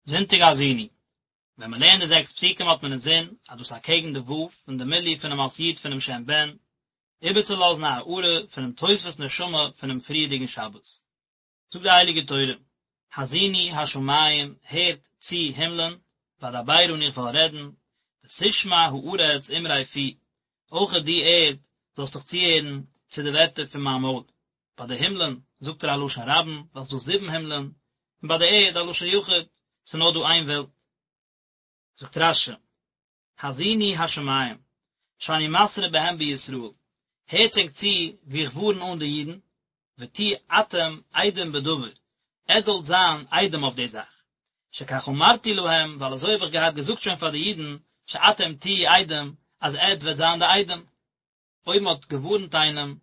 זונטאג האזינו, ווען מען לערנט די זעקס פסוקים האט מען אינזין אז דאס אקעגן די ו' פון די מילוי פונעם אות י' פונעם שם בן, איבערצולאזן א הארה פונעם תוספות נשמה פונעם פריערדיגן שבת. זאגט די הייליגע תורה, האזינו השמים, הערט צו הימלען, ואדברה און איך וועל רעדן, ותשמע הארץ אמרי פי, אויכעט דו ערד זאלסט דיך צוהערן צו די ווערטער פון מיין מויל. ביי די הימלען זאגט ער א לשון רבים, ווייל ס'איז דא זיבן הימלען, און ביי די ערד א לשון יחיד, ס'איז נאר דא איין וועלט. זאגט רש"י, האזינו השמים, שאני מתרה בהם בישראל, הערטס ענק צו ווי איך ווארן אן די אידן, ותהיו אתם עדים בדבר, עטס זאלט זיין עדים אויף די זאך, שכך אמרתי להם, ווייל אזוי האב איך געהאט געזאגט שוין פאר די אידן, שאתם תהיו עדים, אז עטס וועט זיין די עדים. אויב מען האט געווארנט איינעם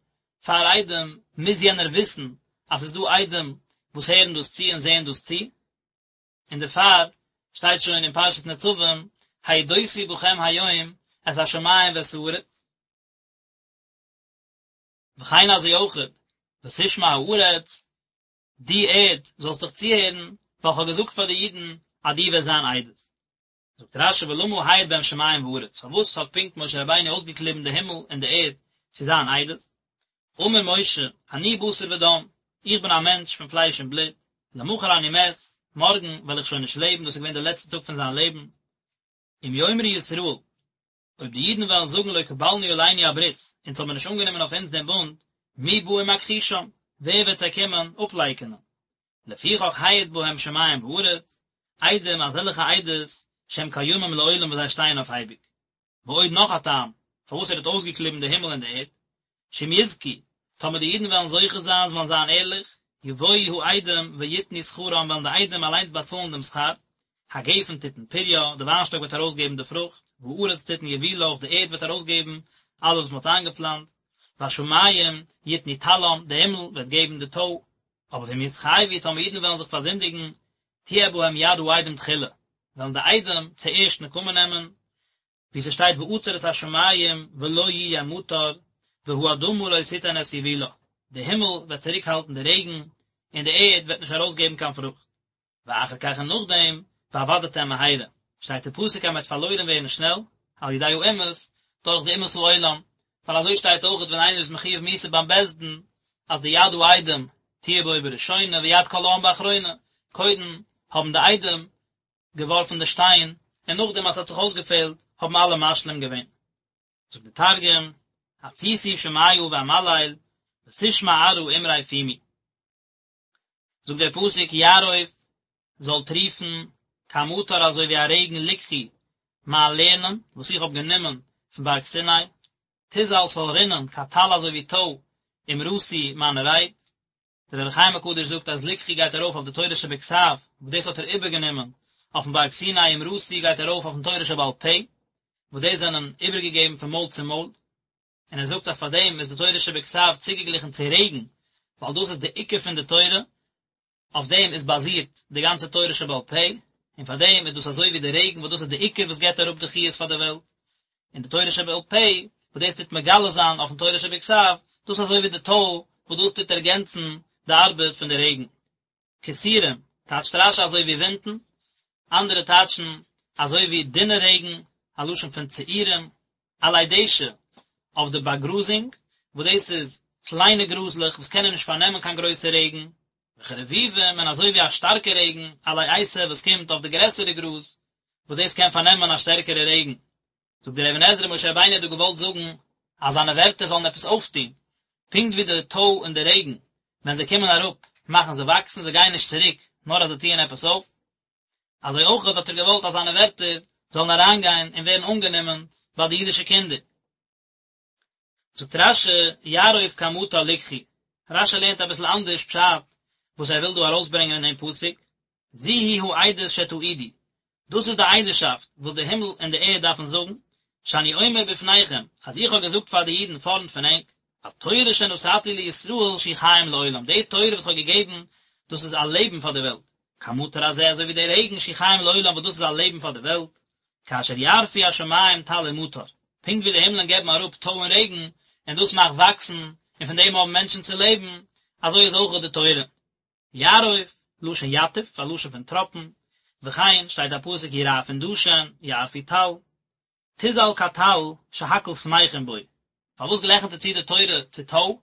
פאר עדים, מוז יענער וויסן אז ס'איז דא עדים וואס הערן דאס צו און זעען דאס צו, און דערפאר שטייט שוין אין פרשת נצבים, העידותי בכם היום את השמים ואת הארץ. וכן אזוי אויכעט, ותשמע הארץ, דו ערד זאלסט דיך צוהערן, ווייל כ'האב געזאגט פאר די אידן אז דו וועסט זיין עדות. זאגט רש"י ולמה העיד בהם שמים וארץ, פארוואס האט פונקט משה רבינו אויסגעקליבן די הימל און די ערד צו זיין עדות? אמר משה, אני בשר ודם, איך בין א מענטש פון פלייש און בלוט, למחר אני מת, מארגן וועל איך שוין נישט לעבן, דאס איז געווען דער לעצטער טאג פון זיין לעבן, אם יאמרו ישראל, אויב די אידן וועלן זאגן לא קבלנו עלינו הברית, אונז האבן נישט אנגענומען אויף אונז דעם בונד, מי בא ומכחישם, ווער וועט זיי קומען אפלייקענען? לפיכך העיד בהם שמים וארץ, עדים אזעלכע עדות שהם קיימים לעולם וואס זיי שטייען אויף אייביג. ועוד נאך א טעם פארוואס ער האט אויסגעקליבן די הימל און די ערד, שאם יזכו, טאמער די אידן וועלן זוכה זיין, זיי וועלן זיין ערליך, יבואו העדים ויתנו שכרם וועלן די עדים אליינס באצאלן דעם שכר, הגפן תתן פריה, די וויינשטאק וועט ארויסגעבן די פרוכט, והארץ תתן יבולה, אויך די ערד וועט ארויסגעבן אלעס וואס מען האט איינגעפלאנצט, והשמים יתנו טלם, די הימל וועט געבן די טוי, אבער ואם יתחייבו, טאמער אידן וועלן זיך פארזינדיגן, תהיה בהם יד העדים תחילה, וועלן די עדים צוערשט נקמה נעמען, ווי ס'שטייט ועצר את השמים ולא יהיה מטר, והאדמה לא תתן את יבולה, די הימל וועט צוריקהאלטן די רעגן, און די ערד וועט נישט ארויסגעבן קיין פרוכט. ואחר כך און נאכדעם, ואבדתם מהרה, שטייט אין פסוק אז מ'וועט פארלוירן ווערן שנעל, על ידי האומות, דורך די אומות העולם, ווייל אזוי שטייט אויכעט ווען איינער איז מחויב מיתה ביים בית דין, אז די יד העדים תהיה בו בראשונה ויד כל העם באחרונה, קודם האבן די עדים געווארפן די שטיין, און נאכדעם אז ס'האט זיך אויסגעפעלט האבן אלע משלים געווען. זאגט די תרגום, התסיתו שמיא ואמליל, ותשמע ארעא אמרי פומי. זאגט דער פסוק יערוף זאל טריפן כמטר אזוי ווי א רעגן לקחי מיין לערנען וואס איך האב גענומען פון בארג סיני, תזל ס'זאל רינען כטל אזוי ווי טוי אמרתי מיינע רייד. דער אור החיים הקדוש זאגט אז לקחי גייט ארויף אויף די תורה שבכתב וואס דאס האט ער איבערגענומען אויפן בארג סיני אמרתי גייט ארויף אויפן תורה שבעל פה וואס דאס זענען איבערגעגעבן פון מויל צו מויל. און ער זאגט אז פאר דעם איז די תורה שבכתב צוגעגליכן צו רעגן, ווייל דאס איז די עיקר פון די תורה, אויף דעם איז באזירט די גאנצע תורה שבעל פה, און פאר דעם איז דאס אזוי ווי די רעגן וואס דאס איז די עיקר וואס געבט אראפ די חיות פאר די וועלט, און די תורה שבעל פה וואס דאס טוט מגלה זיין אויפן תורה שבכתב, דאס איז אזוי ווי די טוי וואס דאס טוט ערגענצן די ארבעט פון די רעגן. כסורים, טייטשט רש"י אזוי ווי ווינטן, אנדערע טייטשן אזוי ווי דינע רעגן, א לשון פון צעורים, עלי דשא, אויף די באגראזונג, וואס דאס איז קליינע גראזלעך וואס קענען נישט פארנעמען קיין גרויסע רעגן, וכרביבים, און אזוי ווי א שטארקע רעגן, עלי עשב וואס קומט אויף די גרעסערע גראז, וואס דאס קען פארנעמען א שטערקערע רעגן. זאגט דער אבן עזרא משה רבינו האט דא געוואלט זאגן אז זיינע ווערטער זאלן עפעס אויפטון, פונקט ווי די טוי און די רעגן ווען זיי קומען אראפ מאכן זיי וואקסן, זיי גייען נישט צוריק נאר אז זיי טוען עפעס אויף, אזוי אויך האט ער געוואלט אז זיינע ווערטער זאלן אריינגיין און ווערן אנגענומען ביי די אידישע קינדער. זאגט רש"י, יערוף כמטר לקחי, רש"י לערנט אביסל אנדערש פשט וואס ער וויל דא ארויסברענגען אין דעם פסוק, זו היא העדות שתעידו, דאס איז די עדות'שאפט וואס די הימל און די ערד דארפן זאגן, שאני אומר בפניכם, אז איך האב געזאגט פאר די אידן פארנט פון ענק, התורה שנתתי לישראל שהיא חיים לעולם, די תורה וואס איך האב געגעבן, דאס איז א לעבן פאר די וועלט, כמטר הזה אזוי ווי דער רעגן שהוא חיים לעולם וואס דאס איז א לעבן פאר די וועלט, כאשר יערפו השמים טל ומטר, פונקט ווי די הימלען געבן אראפ טוי און רעגן, און דאס מאכט וואקסן, און פון דעם האבן מענטשן צו לעבן, אזוי איז אויך די תורה. יערוף, לשון יתף, א לשון פון טראפן. וכן שטייט א פסוק ירעפון דשן, יערפו טל, תזל כטל שהכל שמחין בו, פארוואס גלעכנט ער צו די תורה צו טוי?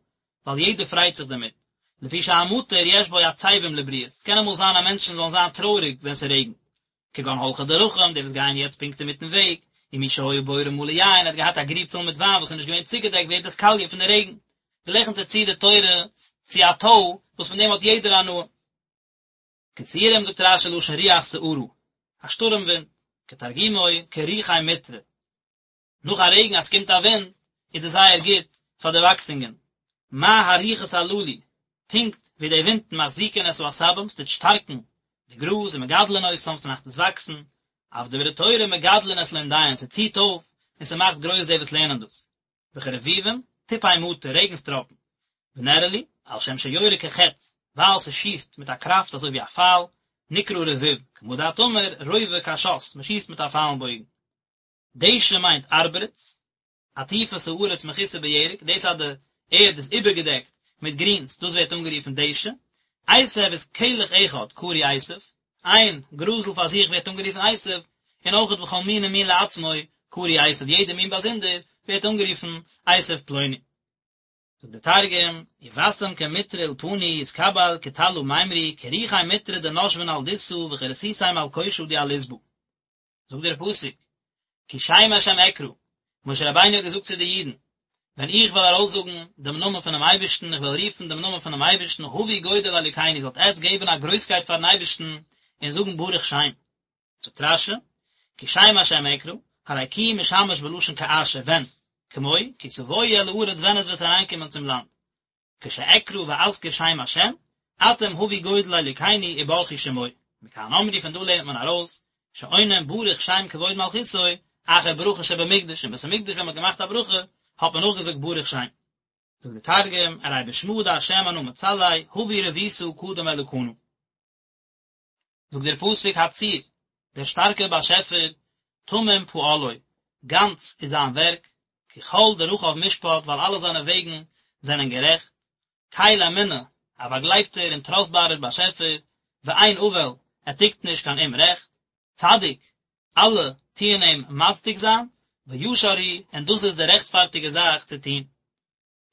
ווייל יעדער פרייט זיך דערמיט, לפי שהמטר יש בו עצבים לבריות, ס'קען אמאל זיין אז מענטשן זאלן זיין טרויעריג ווען ס'רעגנט, כגון הולכי דרכים, די וואס גייען יעצט פונקט אינמיטן וועג, ומי שהיה בורו מלא יין, ער האט געהאט א גריב פול מיט וויין וואס איז נישט געווען צוגעדעקט ווערט עס קאליע פון די רעגן, גלעכנט ער צו די תורה צו א טוי וואס פון דעם האט יעדער הנאה. כסורים זאגט רש"י לשון רוח סערה, א שטורעם ווינט, כתרגומו כרוחי מטרא. נאך א רעגן אז ס'קומט א ווינט איז דאס זייער גוט פאר די וואקסונגען. מה הרוחות הללו, פונקט ווי די ווינטן מחזיקין את העשבים, ס'טוט שטארקן די גראז ומגדלין אותם, ס'מאכט עס וואקסן, אף דברי תורה מגדלין את לומדיהן, ס'ציט אויף און ס'מאכט גרויס די וואס לערנען דאס. וכרביבים, טיפי מטר, רעגנס טראפן. ונראה לי, על שם שיורה כחץ, ווייל ס'שיסט מיט א קראפט אזוי ווי א פייל, נקרא רביב, כמה דאת אמר, רובה קשת, מ'שיסט מיט א פייל און בויגן. דשא מיינט ארברץ, עטיפת הארץ מכוסה בירק, דאס אז די ערד איז איבערגעדעקט מיט גרינס, דאס ווערט אנגערופן דשא. עשב איז כלך אחד קרוי עשב, איין גראזל פאר זיך ווערט אנגערופן עשב, און אויכעט וכל מין ומין לעצמו קרוי עשב, יעדע מין באזונדער ווערט אנגערופן עשב פלוני. זאגט דער תרגום, יבשם כמטרא אולפני יתקבל כטלא מימרי כרוחי מטרא דנשבן על דסא וכרסיסי מלקושא די על עסבא. זאגט דער פסוק, כי שם השם אקרא, משה רבינו האט געזאגט צו די אידן, ווען איך וועל ארויסזאגן דעם נאמען פונעם אייבערשטן, איך וועל רופן דעם נאמען פונעם אייבערשטן, הבו גודל לאלוקינו, זאלט עטץ געבן א גרויסקייט פארן אייבערשטן און זאגן ברוך שם. זאגט רש"י, כי שם השם אקרא, הרי כי משמש בלשון כאשר, ווען, כמו, כי תבואו אל הארץ ווען עטץ וועט אריינקומען צום לאנד. כשאקרא ואזכיר שם השם, אתם הבו גודל לאלוקינו וברכו שמו. מכאן אמרו פון דא לערנט מען ארויס, שעונין ברוך שם כבוד מלכותו, אחר ברכה שבמקדש, אין בית המקדש ווען מען האט געמאכט א ברכה, האט מען נאכגעזאגט ברוך שם. זאגט דער תרגום, ארי בשמא דהשם אנא מצלי, הבו רבותא קדם אלקנא. זאגט דער פסוק הצור, דער שטארקער באשעפער, תמים פעלו, גאנץ איז זיין ווערק, כי כל דרכיו משפט, ווייל אלע זיינע וועגן זענען גערעכט, קל אמונה, א באגלייבטער און טראסטבארער באשעפער, ואין עול, ער טוט נישט קיין אומרעכט, צדיק, אלע טוען אים מצדיק זיין, וישר הוא, און דאס איז די רעכטפארטיגע זאך צו טון.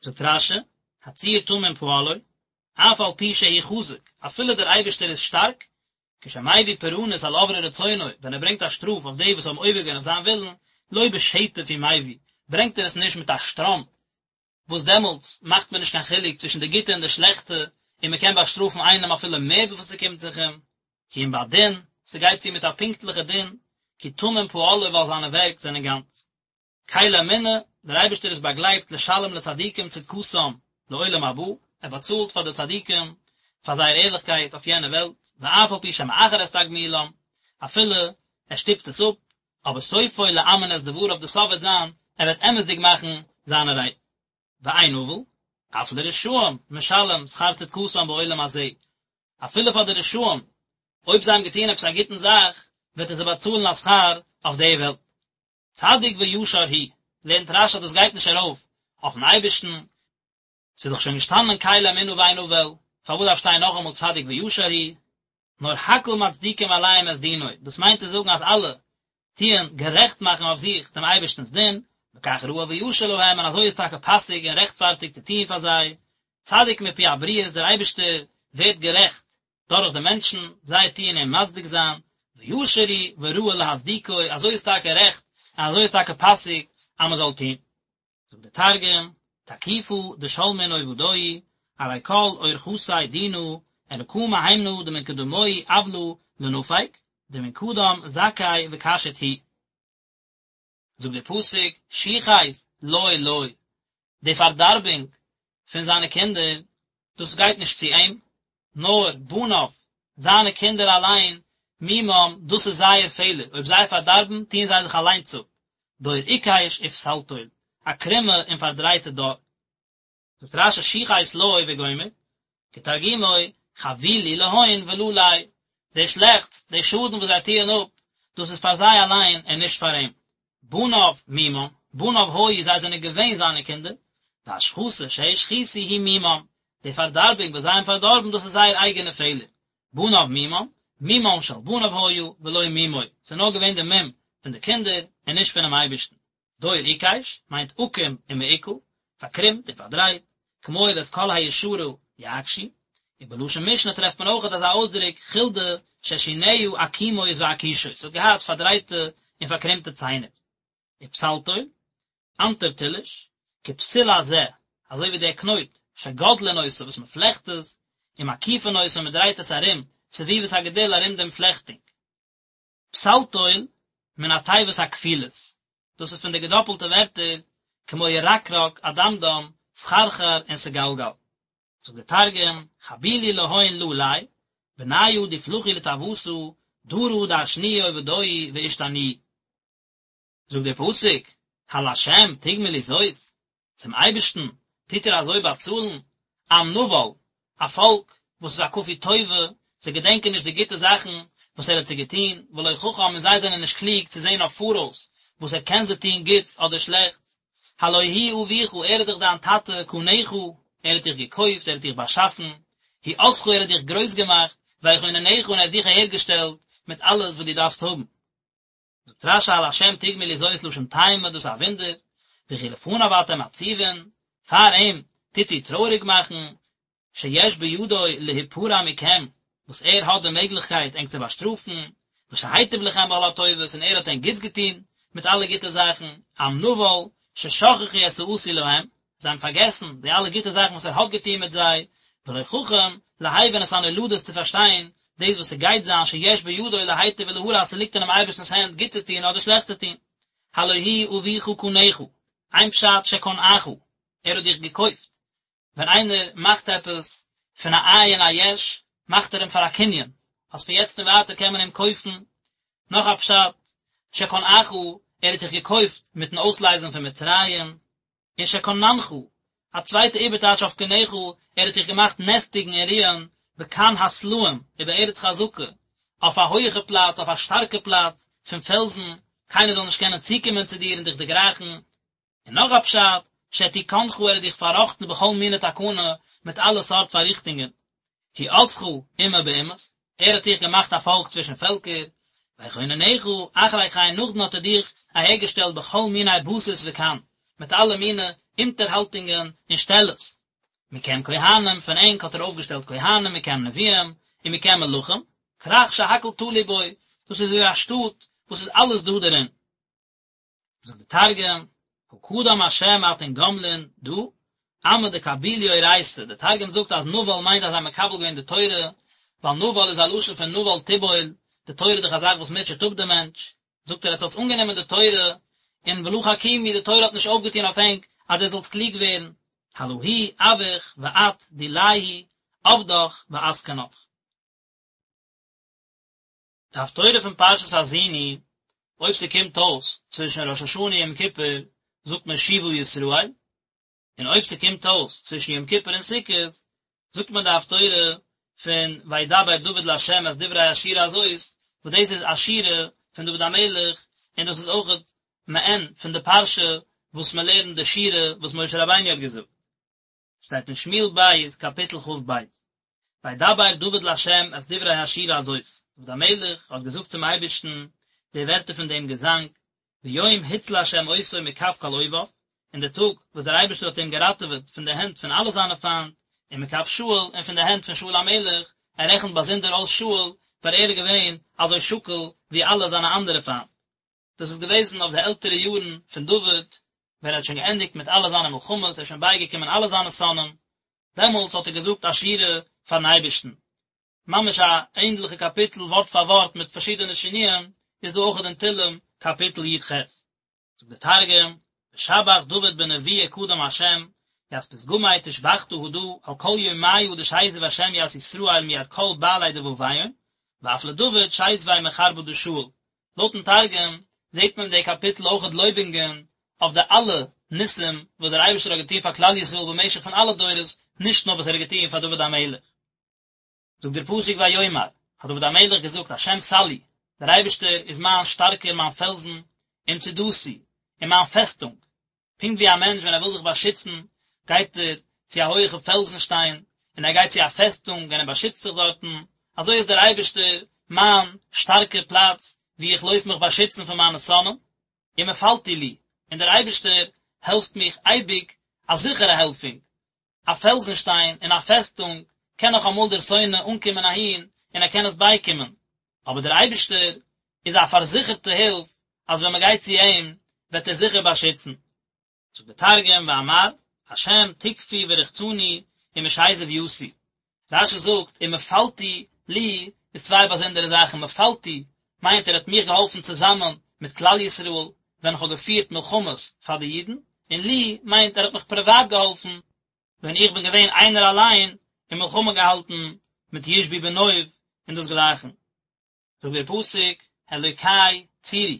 זאגט רש"י, הצור תמים פעלו, אף על פי שהוא חזק, אפילו דער אייבערשטער איז שטארק, כשמביא פורענות על עוברי רצונו, ווען ער ברענגט א שטראף אויף די וואס האבן עובר געווען אויף זיין ווילן, לא בשטף הוא מביא, ברענגט ער עס נישט מיט א שטראם, וואס דעמאלטס מאכט מען נישט קיין חילוק צווישן די גוטע און די שלעכטע, און מען קען באשטראפן איינעם אפילו מער וויפיל ס'קומט זיך אים, כי אם בדין, ס'גייט צו מיט א פונקטליכע דין, כי תמים פעלו ווייל זיינע ווערק זענען גאנץ. קל אמונה, דער אייבערשטער איז באגלייבט לשלם לצדיקים צדקתם לעולם הבא, ער באצאלט פאר די צדיקים פאר זייער ערליכקייט אויף יענע וועלט, ואף על פי שמאחר את תגמולם, אפילו ער שטופט עס אפ, אבער סופו לאמן את דבריו די סוף וועט זיין, ער וועט אמת'דיג מאכן זיינע רייד. ואין עול, אף לרשעים משלם שכר צדקתם בעולם הזה, אפילו פאר די רשעים, אויב זיי האבן געטון עפעס א גוטן זאך, וועט ער זיי באצאלן א שכר אויף די וועלט. צדיק וישר הוא, לערנט רש"י אז דאס גייט נישט ארויף אויפן אייבערשטן, ס'איז דאך שוין געשטאנען קל אמונה ואין עול, פארוואס דארף שטיין נאכאמאל צדיק וישר הוא? נאר הכל מצדיקים עליהם את דינו, דאס מיינט צו זאגן אז אלע טוען גערעכט מאכן אויף זיך דעם אייבערשטנ'ס דין, וכך ראוי וישר להם, און אזוי איז טאקע פאסיג און רעכטפארטיג צו טון פאר זיי, צדיק מפי הבריות, דער אייבערשטער ווערט גערעכט דורך די מענטשן, זיי טוען אים מצדיק זיין, וישר הוא וראוי להצדיקו, אזוי איז טאקע רעכט און אזוי איז טאקע פאסיג אז מען זאל טון. זאגט דער תרגום, תקיפא דשלמין עובדוהי, ארי כל אורחתיה דינא, אלקא מהימנא דמן קדמוהי עוולא לא נפיק, דמן קדם זכי וקשיט הוא. זאגט דער פסוק, שחת לו לא, די פארדארבונג פון זיינע קינדער, דאס גייט נישט צו אים, נאר בניו, זיינע קינדער אליין, מומם, דאס איז זייער פעלער, אויב זיי פארדארבן, טוען זיי זיך אליינס אפ, דור עקש ופתלתול, א קרומע און פארדרייטע דור. זאגט רש"י שחת לו וגומר, כתרגומו, חבילו להון ולא ליה, די שלעכטס, די שאדן וואס זיי טוען אפ, דאס איז פאר זיי אליין און נישט פאר אים. בניו מומם, בניו היו, זיי זענען געווען זיינע קינדער, והשחתה שהשחיתו היא מומם, די פארדארבונג וואס זיי האבן פארדארבן, דאס איז זייער אייגענע פעלער. בניו מומם, מומן של בניו היה ולא מומו, ס'איז נאר געווען די מום פון די קינדער און נישט פונעם אייבערשטן. דור עקש מיינט עקום ומעוקל, פארקרומט און פארדרייט, כמו ואת כל הישרה יעקשו, און בלשון משנה טרעפט מען אויכעט אזא אויסדרוק חולדה ששיניה עקומות ועקושות, ס'האט געהאט פארדרייטע און פארקרומטע ציינער. ופתלתול, אנטרטילוש, כפתיל הזה, אזוי ווי דער קנויט, שגודלין אותו וואס מען פלעכט עס, ומקיפין אותו און מען דרייט עס ארום, סביבות הגדיל ארום דעם פלעכטונג. פתלתול, מן התיבות הכפולות, דאס איז פון די געדאפלטע ווערטער, כמו ירקרק, אדמדם, סחרחר און סגלגל. זאגט דער תרגום, חבילו להון ללי, בניא דפלחו לטעותא, דרא דעשנוהי עובדוהי ואשתניוהי. זאגט דער פסוק, הלה' תגמלו זאת, צום אייבערשטן טוט איר אזוי באצאלן, עם נבל, א פאלק וואס איז א כפוי טובה, זיי געדענקען נישט די גוטע זאכן וואס ער האט זיי געטון, ולא חכם און זיי זענען נישט קלוג צו זען אויף פאראויס וואס ער קען זיי טון גוטס אדער שלעכטס, הלא הוא אביך, ער איז דאך דיין טאטע, קנך, ער האט דיך געקויפט, ער האט דיך באשאפן, הוא עשך, ער האט דיך גרויס געמאכט, ויכוננך, און ער האט דיך אהערגעשטעלט מיט אלעס וואס דו דארפסט האבן. זאגט רש"י הלה' תגמלו זאת לשון תימה דאס איז א וואונדער, וכי לפניו אתם עצובין, פאר אים טוט איר טרויעריג מאכן, שיש בידו להיפרע מכם, וואס ער האט די מעגליכקייט ענק צו באשטראפן, ושהיטיב לכם בכל הטובות און ער האט ענק גוטס געטון מיט אלע גוטע זאכן, עם נבל, ששכחו את העשוי להם, זיי האבן פארגעסן די אלע גוטע זאכן וואס ער האט געטון מיט זיי, ולא חכם להבין את הנולדות צו פארשטיין דאס וואס ס'גייט זיין שיש בידו להיטיב ולהרע אז ס'ליגט אינעם אייבערשטנ'ס הענט גוט צו טון אדער שלעכט צו טון. הלא הוא אביך קנך, איין פשט שקנאך, ער האט דיך געקויפט, ווען איינער מאכט עפעס פון א אין א יש, מאכט ער אים פאר א קנין, אז פון יעצט און ווייטער קען מען אים קויפן, נאך א פשט, שקנאך, ער האט דיך געקויפט מיטן אויסלייזן פון מצרים, און שקננך, א צווייטע איבערטייטש אויף קנך, ער האט דיך געמאכט נעסטיגן און רוען בקן הסלעים ובארץ חזקה, אויף א הויעכע פלאץ, אויף א שטארקע פלאץ פון פעלזן, קיינער זאל נישט קענען צוקומען צו דיר און דיך דערגרייכן. און נאך א פשט, שתיקנך ער האט דיך פארראכטן בכל מיני תקנה, מיט אלע סארט פארריכטונגען. הוא עשך אומה באומות, ער האט דיך געמאכט א פאלק צווישן פעלקער, ויכוננך, אחרי כן נאכדעם האט ער דיך אהערגעשטעלט בכל מיני בסיס וקן, מיט אלע מיני אונטערהאלטונגען און שטעלעס. מכם כהנים, פון ענק האט ער אויפגעשטעלט כהנים, מכם נביאים, און מכם מלכים, כרך שהכל תלוי בו, דאס איז ווי א שטאט וואס איז אלעס דא דערין. זאגט די תרגום, הא קדם השם אתון גמלין דא, עמא דקבילו אורייתא, די תרגום זאגט אז נבל מיינט אז זיי האבן מקבל געווען די תורה, ווייל נבל איז א לשון פון נבל תבול, די תורה איז דאך א זאך וואס מוטשעט אפ די מענטש, זאגט ער עטס האטס אנגענומען די תורה, און ולא חכימו די תורה האט נישט אויפגעטון אויף ענק אז עטס זאלטס קלוג ווערן, הלא הוא אבוך ואת דיליה עבדך ואתקנך. די הפטורה פון פרשת האזינו, אויב ס'קומט אויס צווישן ראש השנה און יום כיפור זאגט מען שובה ישראל, און אויב ס'קומט אויס צווישן יום כיפור און סוכות זאגט מען די הפטורה פון וידבר דוד לה' את דברי השירה הזאת, וואס דאס איז א שירה פון דוד המלך, און דאס איז אויכעט מעין פון די פרשה וואס מען לערנט די שירה וואס משה רבינו האט געזאגט. שטייט אין שמואל ב' קאפיטל כ"ב, וידבר דוד לה' את דברי השירה הזאת, דוד המלך האט געזאגט צום אייבערשטן די ווערטער פון דעם געזאנג, ביום הציל ה' אותו מכף כל אויביו, אין די טאג וואס דער אייבערשטער האט אים געראטעוועט פון די הענט פון אלע זיינע פיינט, ומכף שאול, און פון די הענט פון שאול המלך, ער רעכנט באזונדער אויס שאול, ווייל ער איז געווען אזוי שקול ווי אלע זיינע אנדערע פיינט. דאס איז געוועזן אויף די עלטערע יארן פון דוד, ווען ער האט שוין געענדיגט מיט אלע זיינע מלחמות, ער איז שוין בייגעקומען אלע זיינע שונאים, דעמאלטס האט ער געזאגט א שירה פארן אייבערשטן. ממש א ענדליכע קאפיטל ווארט פאר ווארט מיט פארשידענע שינויים איז דא אויכעט אין תהלים קאפיטל י"ח. זאגט דער תרגום, ושבח דוד בנבואה קדם ה', ית פתגמי תושבחתא הדא על כל יומיא דשיזב ה' ית ישראל מיד כל בעלי דבביהון, ואף לדוד שיזביה מחרבא דשאול, לויטן תרגום זעט מען אין די קאפיטל אויכעט לויבונגען אויף די אלע ניסים וואס דער אייבערשטער האט געטון פאר כלל ישראל במשך פון אלע דורות, נישט נאר וואס ער האט געטון פאר דוד המלך. זאגט דער פסוק ויאמר, האט דוד המלך געזאגט, השם סלעי, דער אייבערשטער איז מיין שטארקער, מיין פעלזן, ומצודתי, און מיין פעסטונג, פונקט ווי א מענטש ווען ער וויל זיך באשיצן גייט ער צו א הויעכע פעלזן שטיין, און ער גייט צו א פעסטונג און ער באשיצט זיך דארטן, אזוי איז דער אייבערשטער. מיין שטארקע פלאץ וואו איך לויף מיך באשיצן פון מיינע שונאים, ומפלתי לי, און דער אייבערשטער העלפט מיך אייביג, א זיכערע העלפונג, א פעלזנשטיין און א פעסטונג קען נאך אמאל דער שונא אנקומען אהין און ער קען עס בייקומען, אבער דער אייבערשטער איז א פארזיכערטע הילף אז ווען מען גייט צו אים וועט ער זיכער באשיצן. זאגט דער תרגום ואמר, השם תקפי ורחצני ומשזב יתי. רש"י זאגט ומפלתי לי איז צוויי באזונדערע זאכן, מפלתי מיינט ער האט מיך געהאלפן צוזאמען מיט כלל ישראל ווען איך האב געפירט מלחמות פאר די אידן, און לי מיינט ער האט מיך פריוואט געהאלפן ווען איך בין געווען איינער אליין און מלחמה געהאלטן מיט ישבי בנוב און דאס גלייכן. זאגט דער פסוק, אלוקי צורי,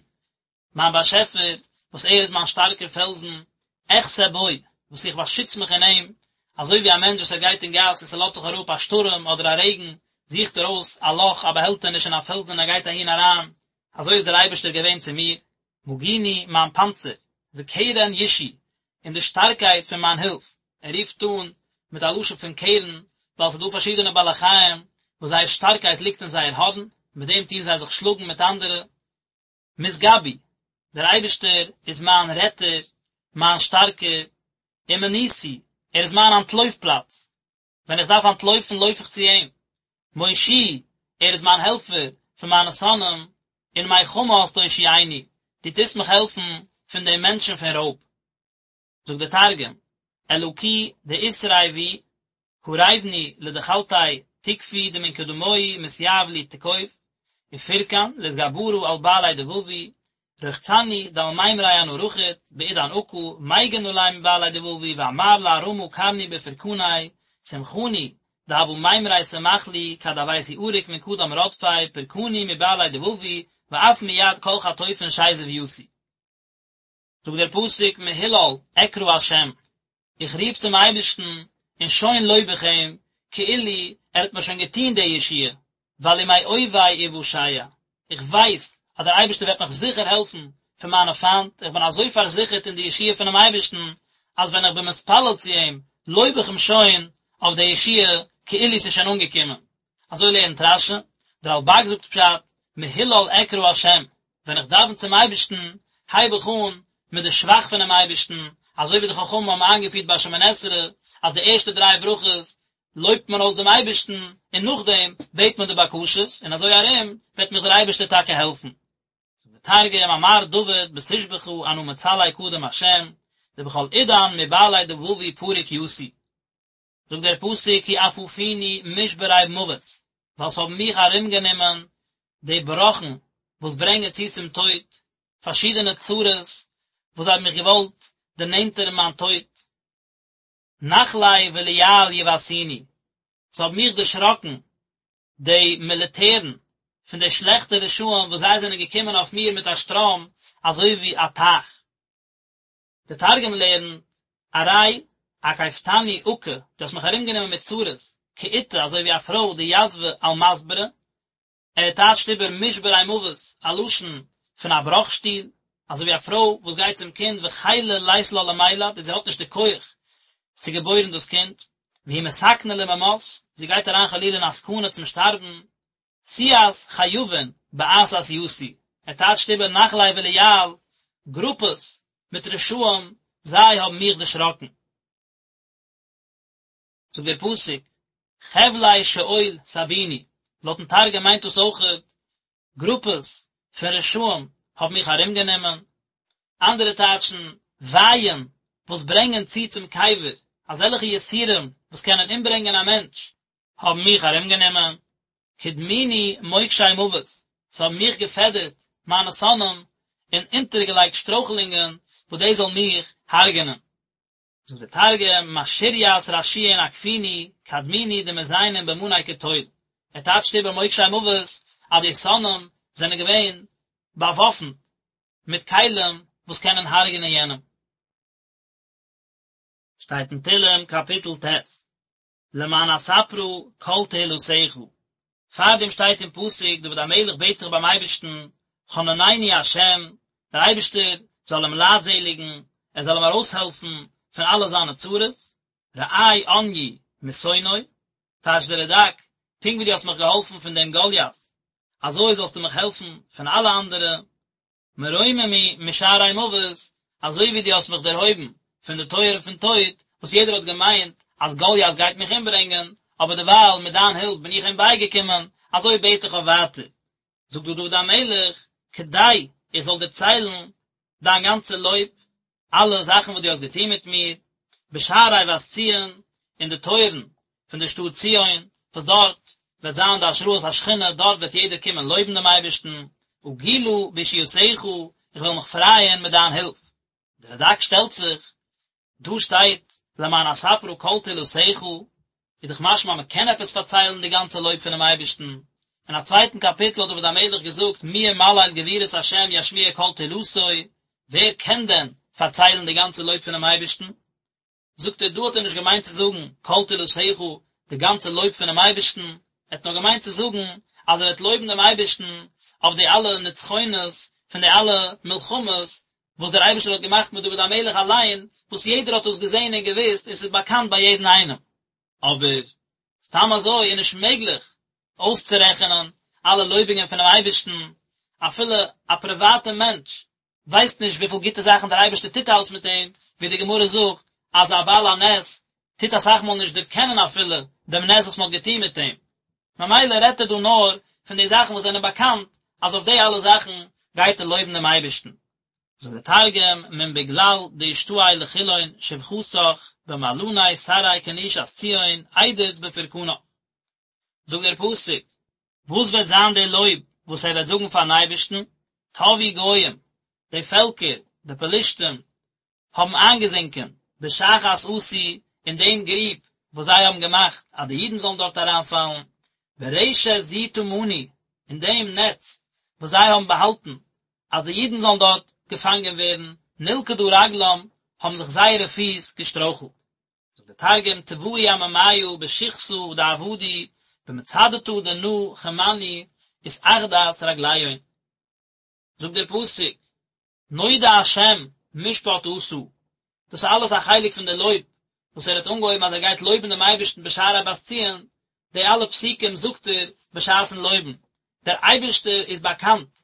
מיין באשעפער, וואס ער איז מיין שטארקער פעלזן, אחסה בו, וואס איך באשיץ מיך אין אים, אזוי ווי א מענטש וואס ער גייט אין גאס און ס'לאזט זיך אראפ א שטורעם אדער א רעגן, זוכט ער אויס א לאך, א באהעלטעניש אין א פעלזן און ער גייט אהין אריין, אזוי איז דער אייבערשטער געווען צו מיר, מגיני, מיין פאנצער, וקרן ישעי, און די שטארקייט פון מיין הילף. ער רופט אן מיט א לשון פון קרן, ווייל ס'איז דא פארשידענע בעלי חיים וואס זייער שטארקייט ליגט אין זייער הארן, מיט דעם טוען זיי זיך שלאגן מיט אנדערע. משגבי, דער אייבערשטער איז מיין רעטער, מיין שטארקער, ומנוסי, ער איז מיין אנטלויף פלאץ, ווען איך דארף אנטלויפן לויף איך צו אים. מושיעי, ער איז מיין העלפער פון מיינע שונאים, און מחמס תושיעני, דו טוסט מיך העלפן פון די מענטשן פון רויב. זאגט דער תרגום, אלקי דאתרעי בי, קריבני לדחלתי תקפי דמן קדמוהי מתיהב לי תקוף, ופרקן לאתגברא על בעלי דבבי, רחצני דעל מימרי אנא רחיץ, בעידן עקא, מגין עלי מבעלי דבבי, ואמר לארמא קרני בפרקני, סמכני, דהוה מימרי סמך לי, כד הויתי עריק מן קדם רדפי, פרקני מבעלי דבבי, ואף מיד כל חטופין שזיב יתי. זאגט דער פסוק מהולל אקרא השם, איך רוף צום אייבערשטן און שוין לויב איך אים, כאילו ער האט מיר שוין געטון די ישועה, ווייל ומאויבי אושע, איך ווייס אז דער אייבערשטער וועט מיך זיכער העלפן פון מיינע פיינט, איך בין אזוי פארזיכערט אין די ישועה פונעם אייבערשטן, אז ווען איך בין מתפלל צו אים, לויב איך אים שוין אויף די ישועה, כאילו ס'איז שוין אנגעקומען. אזוי לערנט רש"י, דער רלב"ג זאגט פשט, מהולל אקרא השם, ווען איך דאווען צום אייבערשטן, הייב איך אן מיט די שבח פונעם אייבערשטן, אזוי ווי די חכמים האבן איינגעפירט ביי שמונה עשרה, אז די ערשטע דריי ברכות לויבט מען אויס דעם אייבערשטן, און נאכדעם בעט מען די בקשות, און אזוי ארום וועט מיך דער אייבערשטער טאקע העלפן. זאגט דער תרגום, אמר דוד בתושבחא אנא מצלי קדם השם, דבכל עידן מבעלי דבבי פריק יתי. זאגט דער פסוק כי אפפוני משברי מוות, ווייל ס'האבן מיך ארומגענומען די בראכן וואס ברענגען צו צום טויט, פארשידענע צרות וואס זיי האבן מיך געוואלט דערנענטערן מיין טויט. נחלי בליעל יבעתוני, ס'האבן מיך דערשראקן די מיליטערן פון די שלעכטע רשעים וואס זיי זענען געקומען אויף מיר מיט א שטראם אזוי ווי א טייך. דער תרגום לערנט, ארי אקיפתני עקא, דו האסט מיך ארומגענומען מיט צרות, כאיתא, אזוי ווי א פרוי דיתבא על מסברא, ער טייטשט איבער משברי מוות, א לשון פון א בראך שטול, אזוי ווי א פרוי וואס גייט צום קינד וחילא לית לה למילד און זי האט נישט די כח צו געבוירן דאס קינד, והיא מסכנה לממות, זי גייט אריין חלילה אין א סכנה צום שטארבן, סיעת חייבין בעתת יתי, ער טייטשט איבער נחלי בליעל, גרופעס מיט רשעים, זיי האבן מיך דערשראקן. זאגט דער פסוק, חבלי שאול סבוני, לויטן תרגום מיינט דאס אויכעט גרופעס פון רשעים האבן מיך ארומגענומען, אנדערע טייטשן ווייען וואס ברענגען צו צום קבר, אזעלכע יסורים וואס קענען אומברענגען א מענטש, האבן מיך ארומגענומען, קדמוני מוקשי מוות, ס'האבן מיך געפעדערט מיינע שונאים און אונטערגעלייגט שטרויכלונגען וואס דאס זאל מיך הרג'ענען. זאגט דער תרגום, משריית רשיעין אקפוני, קדמוני דמזיינין במני קטול, ער טייטשט איבער מוקשי מוות אז די שונאים זענען געווען באוואפנט מיט כלים וואס קענען הרג'ענען יענעם. שטייט אין תהלים קאפיטל ט', למען אספרה כל תהלתך, פארדעם שטייט אין פסוק דוד המלך בעט זיך ביים אייבערשטן, חננני השם, דער אייבערשטער זאל אים לייטזעליגן, ער זאל אים ארויסהעלפן פון אלע זיינע צרות, ראה עניי משונאי, טייטשט דער רד"ק, פונקט ווי דו האסט מיך געהאלפן פון דעם גוליית. אזוי זאלסטו מיך העלפן פון אלע אנדערע, מרוממי משערי מוות, אזוי ווי דו האסט מיך דערהויבן פון די טויערן פון טויט, וואס יעדער האט געמיינט אז גוליית גייט מיך אומברענגען, אבער דערווייל מיט דיין הילף בין איך אים בייגעקומען, אזוי בעט איך אויף ווייטער. זאגט דא דוד המלך, כדי איך זאל דערציילן דיין גאנצע לויב, אלע זאכן וואס דו האסט געטון מיט מיר, בשערי בת ציון, אין די טויערן פון דער שטאט ציון, וואס דארט וועט זיין די השראת השכינה, דארט וועט יעדער קומען לויבן דעם אייבערשטן, אגילה בישועתך, איך וועל מיך פרייען מיט דיין הילף. דער רד"ק שטעלט זיך, דא שטייט למען אספרה כל תהלתך, איז דאך משמע אז מען קען עפעס פארציילן די גאנצע לויב פונעם אייבערשטן, אין א צווייטן קאפיטל האט דוד המלך געזאגט מי ימלל גבורות השם ישמיע כל תהלתו, ווער קען דען פארציילן די גאנצע לויב פונעם אייבערשטן? זאגט ער דא האט ער נישט געמיינט צו זאגן כל תהלתך די גאנצע לויב פונעם אייבערשטן, ער האט נאר געמיינט צו זאגן אז ער וועט לויבן דעם אייבערשטן אויף די אלע נצחונות פון די אלע מלחמות וואס דער אייבערשטער האט געמאכט מיט דוד המלך אליין, וואס יעדער האט דאס געזען און געוואוסט און ס'איז באקאנט ביי יעדן איינעם. אבער סתם אזוי איז נישט מעגליך אויסצורעכענען אלע לויבונגען פונעם אייבערשטן, אפילו א פריוואטע מענטש ווייסט נישט וויפיל גוטע זאכן דער אייבערשטער טוט אלץ מיט אים, ווי די גמרא זאגט אז א בעל הנס טוט אסאך מאל נישט דערקענען אפילו דעם נס וואס מען האט געטון מיט אים, ממילא רעדט ער דא נאר פון די זאכן וואס זענען באקאנט אז אויף די אלע זאכן גייט ער לויבן דעם אייבערשטן. זאגט דער תרגום, מן בגלל דאשתעי לכולהון שבחתך במעלני תרעי כנישת ציון אדוץ בפורקנך. זאגט דער פסוק, וואס וועט זיין די לויב וואס ער וועט זאגן פארן אייבערשטן, טבעו גוים, די פעלקער, די פלישתים, האבן איינגעזינקען בשחת עשו אין דעם גריב וואס זיי האבן געמאכט אז די אידן זאלן דארט אריינפאלן, ברשת זו טמנו, אין דעם נעץ וואס זיי האבן באהאלטן אז די אידן זאלן דארט געפאנגען ווערן, נלכדה רגלם, האבן זיך זייערע פיס געשטרויכלט. זאגט דער תרגום, טבעו עממיא בשכתא דעבדו במצדתא דנא כמנו אתעכדת רגליהון. זאגט דער פסוק, נודע השם משפט עשה, דאס איז אלעס א חלק פון די לויב וואס ער האט אנגעהויבן אז ער גייט לויבן דעם אייבערשטן בשערי בת ציון, די אלע פסוקים זאגט ער בשעת'ן לויבן, דער אייבערשטער איז באקאנט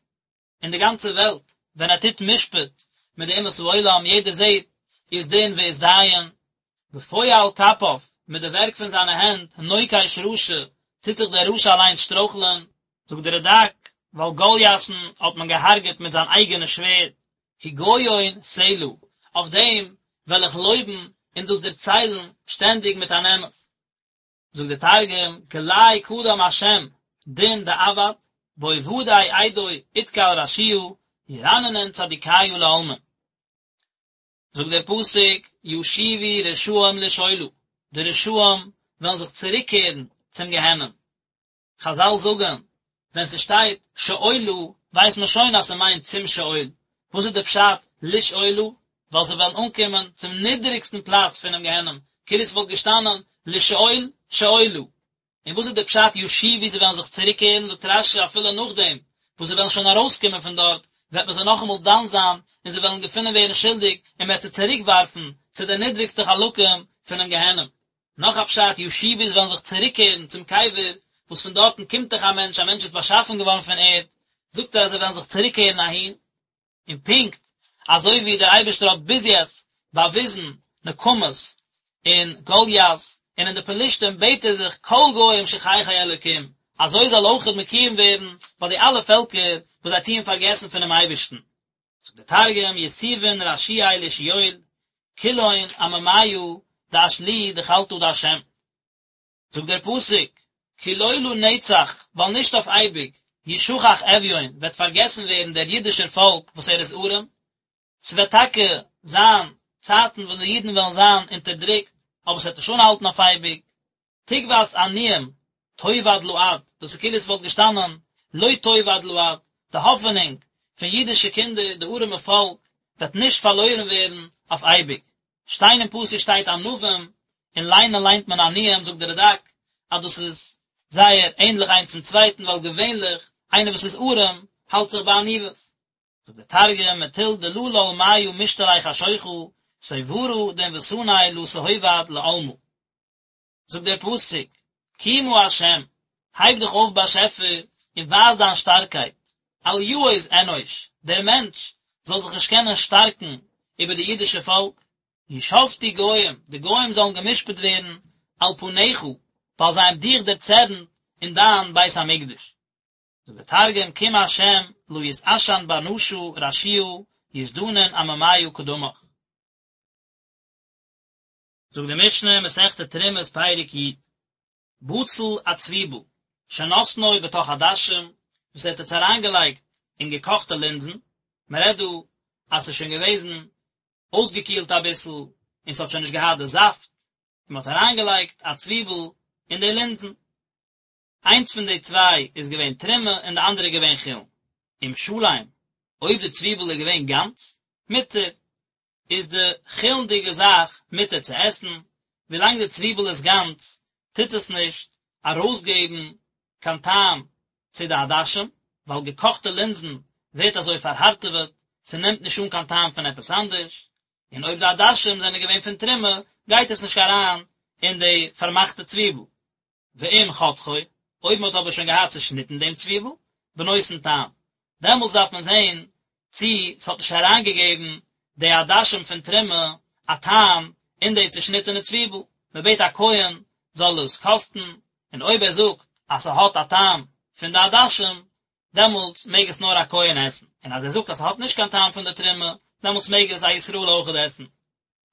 אין די גאנצע וועלט ווען ער טוט משפט מיט די אומות העולם, יעדער זעט אית דין ואית דיין, בפועל כפיו, מיט די ווערק פון זיינע הענט, נוקש רשע, טוט זיך דער רשע אליינס שטרויכלען. זאגט דער רד"ק, ווייל גולית'ן האט מען געהארגעט מיט זיין אייגענע שווערד, הגיון סלה, אויף דעם וועל איך לויבן און דאס דערציילן שטענדיג מיט אן אמת. זאגט דער תרגום, גלי קדם השם דין דעבד, בעובדי אידוי אתקל רשיעא, ירננון צדיקיא לעלמין. זאגט דער פסוק, ישובו רשעים לשאולה, די רשעים וועלן זיך צוריקקערן צום גיהנום. חזל זאגן, ווען ס'שטייט שאולה ווייסט מען שוין אז ס'מיינט צום שאול, וואס איז די פשט לשאולה? ווייל זיי וועלן אנקומען צום נידעריגסטן פלאץ פונעם גיהנום, כאילו ס'וואלט געשטאנען לשאול שאולה. און וואס איז די פשט ישובו זיי וועלן זיך צוריקקערן, זאגט רש"י אפילו נאכדעם וואס זיי וועלן שוין ארויסקומען פון דארט, וועט מען זיי נאכאמאל דן זיין און זיי וועלן געפונען ווערן שולדיג און מ'וועט זיי צוריקווארפן צו די נידריגסטע חלקים פונעם גיהנום. נאך א פשט, ישובו זיי וועלן זיך צוריקקערן צום קבר, וואס פון דארטן קומט דאך א מענטש, א מענטש איז באשאפן געווארן פון ערד, זאגט ער אז זיי וועלן זיך צוריקקערן אהין, און פונקט אזוי ווי דער אייבערשטער האט ביז יעצט באוויזן נקמות אין גוליית און אין די פלישתים בעט ער זיך כל גוים שכחי אלוקים, אזוי זאל אויכעט מקוים ווערן ביי די אלע פעלקער וואס זיי טוען פארגעסן פונעם אייבערשטן. זאגט דער תרגום, יתובון רשיעי לשאול, כולהון עממיא דאשלוהו דחלתא דהשם. זאגט דער פסוק, כי לא לנצח, ווייל נישט אויף אייביג, ישכח אביון, וועט פארגעסן ווערן דער אידישער פאלק וואס ער איז ארעם, ס'וועט טאקע זיין צייטן וואס די אידן וועלן זיין אונטערדרוקט, אבער ס'וועט נישט אנהאלטן אויף אייביג, תקות עניים תאבד לעד, דאס איז כאילו עס וואלט געשטאנען לא תאבד לעד, די האפענונג פון אידישע קינדער, די ארעמע פאלק, וועט נישט פארלוירן ווערן אויף אייביג. שטיין אין פסוק שטייט ענווים, און ליינען ליינט מען עניים, זאגט דער רד"ק אז דאס איז זייער ענדליך איינס צום צווייטן, ווייל געווענליך איינער וואס איז ארעם האלט זיך ביי עניוות. זאגט דער תרגום, מטול דללל מיא משתרי חשוכא, סוברא דענוותניה לא תהובד לעלמא. זאגט דער פסוק, קומה ה', הייב דיך אויף באשעפער, און ווייז דיין שטארקייט, אל יעוז אנוש, דער מענטש זאל זיך נישט קענען שטארקן איבער די אידישע פאלק, ישפטו גוים, די גוים זאלן גע'משפט ווערן על פניך, ווייל זיי האבן דיך דערצערנט אין דיין בית המקדש. זאגט דער תרגום, קום השם, לא יתעשן בר נשא רשיעא, יזדנון עממיא קדמך. זאגט די משנה, מסכת תרומות פרק י, בצל א צוויבל, שנתנו בתוך עדשים, וואס ער האט עס אריינגעלייגט אין געקאכטע לינזן, מען רעדט דא אז ס'איז שוין געוועזן אויסגעקילט אביסל און ס'האט שוין נישט געהאט די זאפט, און מען האט אריינגעלייגט א צוויבל אין די לינזן. איינס פון די צוויי איז געווען תרומה און די אנדערע איז געווען חולין. אם שלם, אויב די צוויבל איז געווען גאנץ, מותר, איז די חולין'דיגע זאך מותר צו עסן, ווילאנג די צוויבל איז גאנץ טוט עס נישט ארויסגעבן קיין טעם צו די עדשים, ווייל געקאכטע לינזן ווערט אזוי פארהארטעוועט, ס'נעמט נישט אן קיין טעם פון עפעס אנדערש, און אויב די עדשים זענען געווען פון תרומה גייט עס נישט אריין אין די פארמאכטע צוויבל. ואם חתכו, אויב מען האט אבער שוין געהאט צעשניטן דעם צוויבל, בנותן טעם, דעמאלטס דארף מען זען צי ס'האט נישט אריינגעגעבן די עדשים פון תרומה א טעם אין די צעשניטענע צוויבל, מען בעט א כהן זאל עס קאסטן, און אויב ער זאגט אז ס'האט א טעם פון די עדשים, דעמאלטס מעג עס נאר א כהן עסן, און אז ער זאגט אז ס'האט נישט קיין טעם פון די תרומה, דעמאלטס מעג עס א ישראל אויכעט עסן.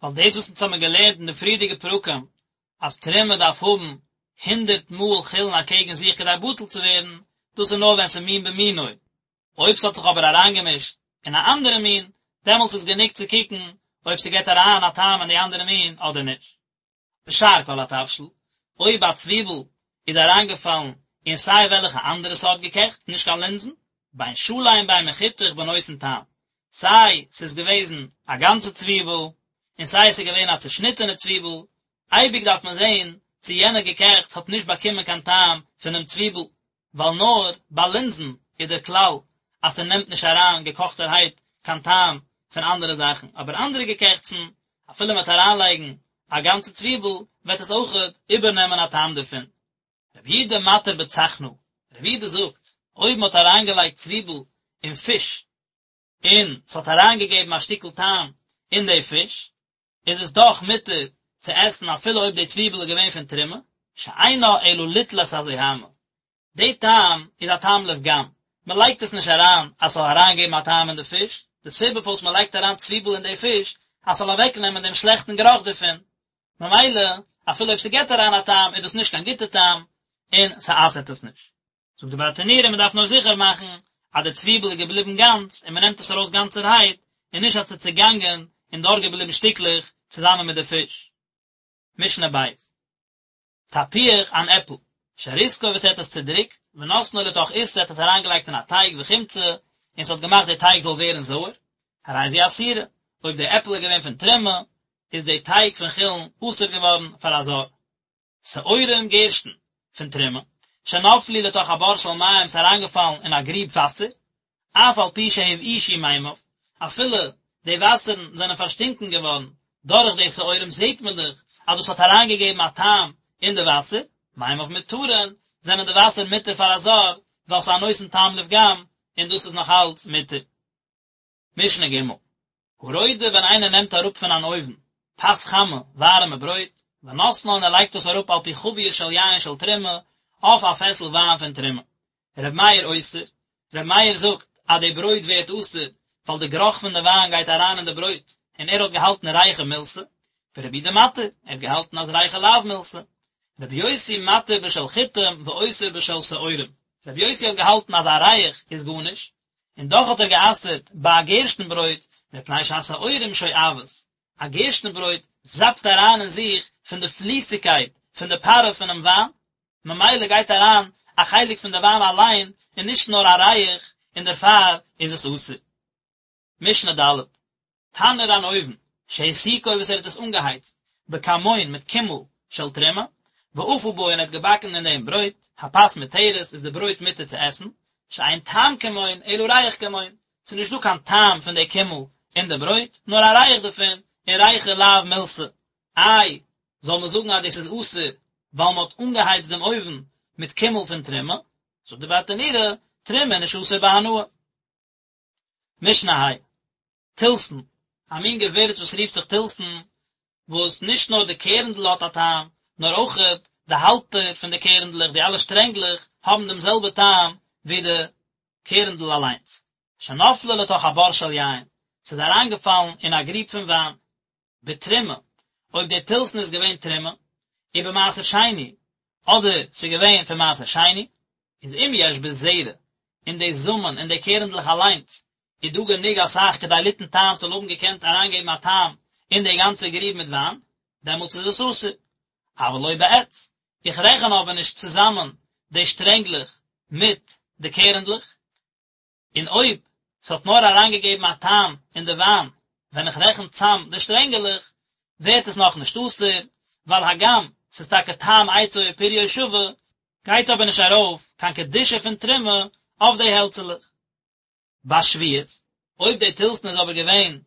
ווייל דאס וואס אונז האבן געלערנט אין די פריערדיגע פרקים אז תרומה דארף האבן הונדרעט מאל חולין אקעגן זיך כדי בטל צו ווערן, דאס איז נאר ווען ס'איז מין במינו, אויב ס'האט זיך אבער אריינגעמישט אין א אנדערע מין, דעמאלטס איז גענוג צו קוקן אויב ס'געט אריין א טעם אין די אנדערע מין אדער נישט. ושאר כל התבשיל, אויב א צוויבל איז אריינגעפאלן אין סיי וועלכע אנדערע סארט געקעכטס, נישט קיין לינזן, בין שלם בין מחותך בנותן טעם, סיי ס'איז געוועזן א גאנצע צוויבל, און סיי ס'איז געווען א צעשניטענע צוויבל, אייביג דארף מען זען צו יענע געקעכטס האט נישט באקומען קיין טעם פונעם צוויבל, ווייל נאר ביי לינזן איז דער כלל אז ס'נעמט נישט אריין געקאכטערהייט קיין טעם פון אנדערע זאכן, אבער אנדערע געקעכטסן, אפילו מ'וועט אריינלייגן א גאנצע צוויבל, וועט עס אויכעט איבערנעמען א טעם דערפון. רבי יהודה מתיר בצחנה, רבי יהודה זאגט, אויב מ'האט אריינגעלייגט צוויבל אין פיש, און ס'האט אריינגעגעבן א שטיקל טעם אין די פיש, איז עס דאך מותר צו עסן אפילו אויב די צוויבל איז געווען פון תרומה, שאינה אלא ליטול את הזוהמא. די טעם איז א טעם לפגם, מען לייגט עס נישט אריין אז ס'זאל אריינגעבן א טעם אין די פיש, די סיבה פארוואס מען לייגט אריין צוויבל אין די פיש אז ס'זאל אוועקנעמען דעם שלעכטן גערוך דערפון, ממילא אפילו אויב ס'געט אריין א טעם איז דאס נישט קיין גוטע טעם און ס'אסר'ט עס נישט. זאגט די ברטנורא מען דארף נאר זיכער מאכן אז די צוויבל איז געבליבן גאנץ און מען נעמט עס ארויס גאנצערהייט און נישט אז ס'איז צעגאנגען און דארט געבליבן שטיקלעך צוזאמען מיט די פיש. משנה בית. תפוח אן עפל, שריסקו וואס ער האט עס צודריקט, ונתנו לתוך עיסה ער האט עס אריינגעלייגט אין א טייג וחימצה און ס'האט געמאכט די טייג זאל ווערן זויער, הרי זו אסורה, אויב די עפל איז געווען פון תרומה, איז די טייג פון חולין אסור געווארן פאר א זר. שעורים גערשטן פון תרומה, שנפלו לתוך הבור של מים ס'איז אריינגעפאלן אין א גריב וואסער, אף על פי שהבאישו מימיו, אפילו די וואסערן זענען פארשטינקען געווארן דורך די שעורים זעט מען דאך אז דאס האט אריינגעגעבן א טעם אין די וואסער, מימיו מותרין, זענען די וואסער מותר פאר א זר, ווייל ס'איז א נותן טעם לפגם, און דאס איז נאך אלץ מותר. משנה ג', הרודה ווען איינער נעמט אראפ פון אן אויוון פת חמה, ווארעמע ברויט, ונותנה און ער לייגט דאס אראפ על פי חבית של יין של תרומה, אויף א פעסל וויין פון תרומה. ר' מאיר אוסר, ר' מאיר זאגט אז די ברויט ווערט אסור ווייל די גערוך פון די וויין גייט אריין אין די ברויט, און ער האט געהאלטן ריחא מילתא, ורבי יהודה מתיר, ער האט געהאלטן אז ריחא לאו מילתא. רבי יוסי מתיר בשל חיטים ואוסר בשל שעורים, רבי יוסי האט געהאלטן אז א ריח איז גארנישט, און דאך האט ער גע'אסר'ט ביי א גערשטן ברויט, מפני שהשעורים שואבות, א גערשטן ברויט זאפט אריין אין זיך פון די פליסיגקייט פון די פארע פונעם וויין, ממילא גייט אריין א חלק פון די וויין אליין און נישט נאר א ריח, און דערפאר איז עס אסור. משנה ד', תנור אן אויוון, שהסיקו וואס ער האט עס אנגעהייצט, בכמון מיט קימל של תרומה, ואפה בו און ער האט געבאקן אין דעם ברויט, הפת מותרת איז די ברויט מותר צו עסן, שאין טעם כמון אלא ריח כמון, ס'איז נישט דא קיין טעם פון די קימל אין די ברויט, נאר א ריח דערפון, און ריחא לאו מילתא. איי, זאל מען זאגן אז דאס איז אסור ווייל מען האט אנגעהייצט דעם אויוון מיט קימל פון תרומה? זאגט די ברטנורא, תרומה איז נישט אסור בהנאה. משנה ה'. תלתן, א מין געווירץ וואס רופט זיך תלתן, וואס נישט נאר די קערנדל האט א טעם, נאר אויכעט די האלטער פון די קערנדלעך, די אלע שטרענגלעך, האבן דעם זעלבע טעם ווי די קערנדל אליינס. שנפלה לתוך הבור של יין, ס'איז אריינגעפאלן אין א גריב פון וויין. בתרומה, אויב די תלתן איז געווען תרומה, ובמעשר שני, אדער ס'איז געווען פון מעשר שני, איז אם יש בזרע, אין די זאמען, אין די קערנדלעך אליינס, איז דא גענוג אסאך כדי ליתן טעם ס'זאל האבן געקענט אריינגעבן א טעם אין די גאנצע גריב מיט וויין, דעמאלטס איז עס אסור. אבל לא בעץ, איך רעכן אבער נישט צוזאמען די שטרענגלעך מיט די קערנדלעך, און אויב ס'האט נאר אריינגעגעבן א טעם אין די וויין ווען איך רעכן צאם די שטרענגעלעך, ווערט עס נאכנישט אסור, ווייל הגם ס'איז טאקע טעם עצו ופריו שווה, גייט אבער נישט ארויף קיין קדושה פון תרומה אויף די העלצעלעך. בשביעית, אויב די תלתן איז אבער געווען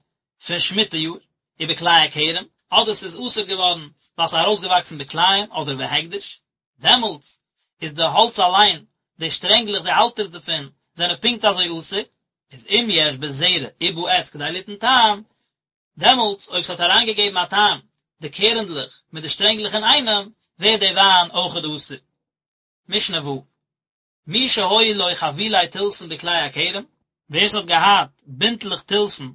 פון שמיטה יאר, ובכלאי הכרם, אדער ס'איז אסור געווארן ווייל ס'איז ארויסגעוואקסן בכלאים אדער בהקדש, דעמאלטס איז די האלץ אליין, די שטרענגלעך, די האלטערס דערפון, זענען פונקט אזוי אסור, איז אם יש בזרע ובעץ כדי ליתן טעם, דעמאלטס אויב ס'האט אריינגעגעבן א טעם די קערנדלעך מיט די שטרענגלעך אינאיינעם, ווערט די וויין אויכעט אסור. משנה ו'. מי שהיו לו חבילי תלתן בכלאי הכרם, ווער ס'האט געהאט בינטלעך תלתן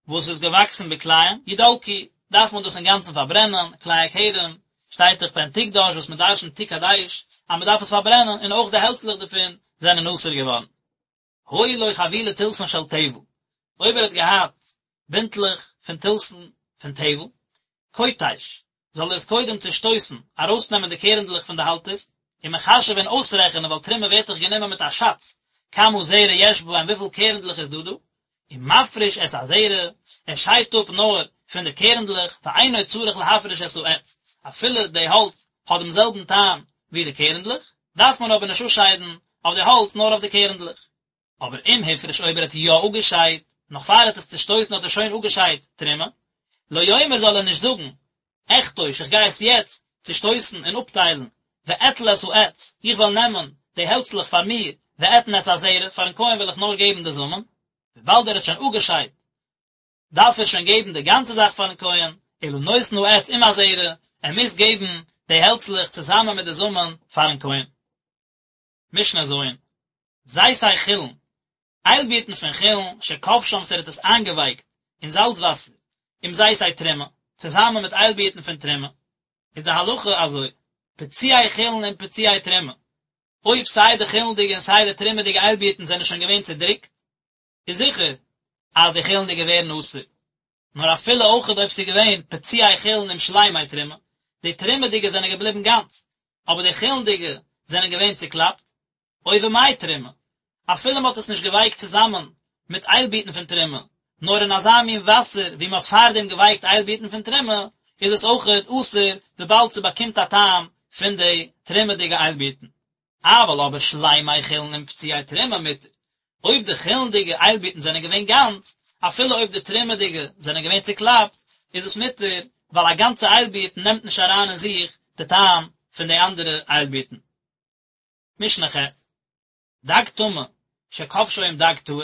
וואס איז געוואקסן בכלאים, ידלקו, דארף מען דאס אינגאנצן פארברענען, כלאי הכרם, שטייט דאך פן תקדש וואס מען דרשנ'ט תקדש, אז מען דארף עס פארברענען, און אויך די העלצלעך דערפון זענען אסור געווארן. היו לו חבילי תלתן של טבל, אויב ער האט געהאט בינטלעך פון תלתן פון טבל, כותש, זאל ער עס קודם צושטויסן, ארויסנעמען די קערנדלעך פון די האלטערס, ומחשב און אויסרעכענען ווייל תרומה ווערט דאך גענומען מיט א שאץ, כמה זרע יש בהם וויפיל קערנדלעך איז דא דא, ומפריש את הזרע, ער שיידט אפ נאר פון די קערנדלעך, ואינו צריך להפריש את העץ, אפילו די האלץ האט דעם זעלבן טעם ווי די קערנדלעך, דארף מען אבער נישט אפשיידן אויף די האלץ נאר אויף די קערנדלעך. אבער אם הפריש אויב ער האט יא אפגעשיידט, נאך פאר ער האט עס צושטויסן האט ער שוין אפגעשיידט תרומה, לא יאמר זאל ער נישט זאגן, אכתוש איך גיי עס יעצט צושטויסן און אפטיילן, ואטול את העץ, איך וועל נעמען די העלצלעך פאר מיר, ואתן את הזרע, פארן כהן וועל איך נאר געבן די זאמען, וויבאלד ער האט שוין אפגעשיידט דארף ער שוין געבן די גאנצע זאך פארן כהן, אלא נותן העץ עם הזרע, ער מוז געבן די העלצלעך צוזאמען מיט די זאמען פארן כהן. משנה ז', זיתי חולין, איילבירטן פון חולין, שכבשן וואס ער האט עס איינגעווייקט אין זאלץ וואסער, עם זיתי תרומה, צוזאמען מיט איילבירטן פון תרומה, איז די הלכה אזוי, פצועי חולין עם פצועי תרומה, אויב סיי די חולין'דיגע און סיי די תרומה'דיגע איילבירטן זענען שוין געווען צודריקט, איז זיכער אז די חולין'דיגע ווערן אסור, נאר אפילו אויכעט אויב ס'איז געווען פצועי חולין עם שלימי תרומה, די תרומה'דיגע זענען געבליבן גאנץ, אבער די חולין'דיגע זענען געווען צוקלאפט, או במי תרומה, אפילו מ'האט עס נישט געווייקט צוזאמען מיט איילבירטן פון תרומה, נאר אין אזא מין וואסער ווי מ'האט פארדעם געווייקט איילבירטן פון תרומה, איז עס אויכעט אסור וויבאלד ס'באקומט א טעם פון די תרומה'דיגע איילבירטן. אבל אבער שלימי חולין עם פצועי תרומה מותר, אויב די חולין'דיגע איילבירטן זענען געווען גאנץ, אפילו אויב די תרומה'דיגע זענען געווען צוקלאפט, איז עס מותר, ווייל א גאנצע איילבירט נעמט נישט אריין אין זיך די טעם פון די אנדערע איילבירטן. משנה ח', דג טמא שכבשו עם דג טהור,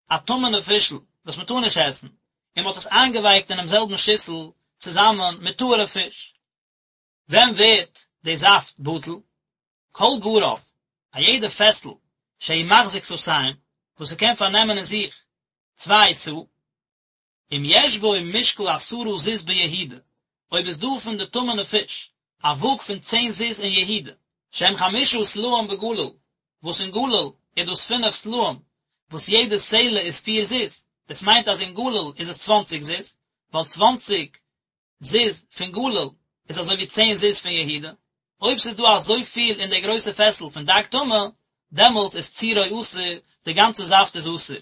א טמא'נע פישל וואס מען טאר נישט עסן, און מען האט עס איינגעווייקט אינעם זעלבן שיסל צוזאמען מיט טהור'ע פיש. ווען ווערט די זאפט בטל? כל גרף, א יעדע פעסל שהוא מחזיק סאתים, וואס ס'קען פארנעמען אין זיך צוויי סאה, אם יש בו משקל עשרה זוז ביהודה, אויב איז דא פון די טמא'נע פיש א וואג פון צען זוז אין יהודה, שהם חמשה סלעים בגליל, וואס אין גליל איז דאס פינף סלעים, וואס יעדע סלע איז פיר זוז, דאס מיינט אז אין גליל איז עס צוואנציג זוז, ווייל צוואנציג זוז פון גליל איז אזוי ווי צען זוז פון יהודה, אויב ס'איז דא אזויפיל אין די גרויסע פעסל פון דג טמא, דעמאלטס איז צירו אסור, די גאנצע זאפט איז אסור.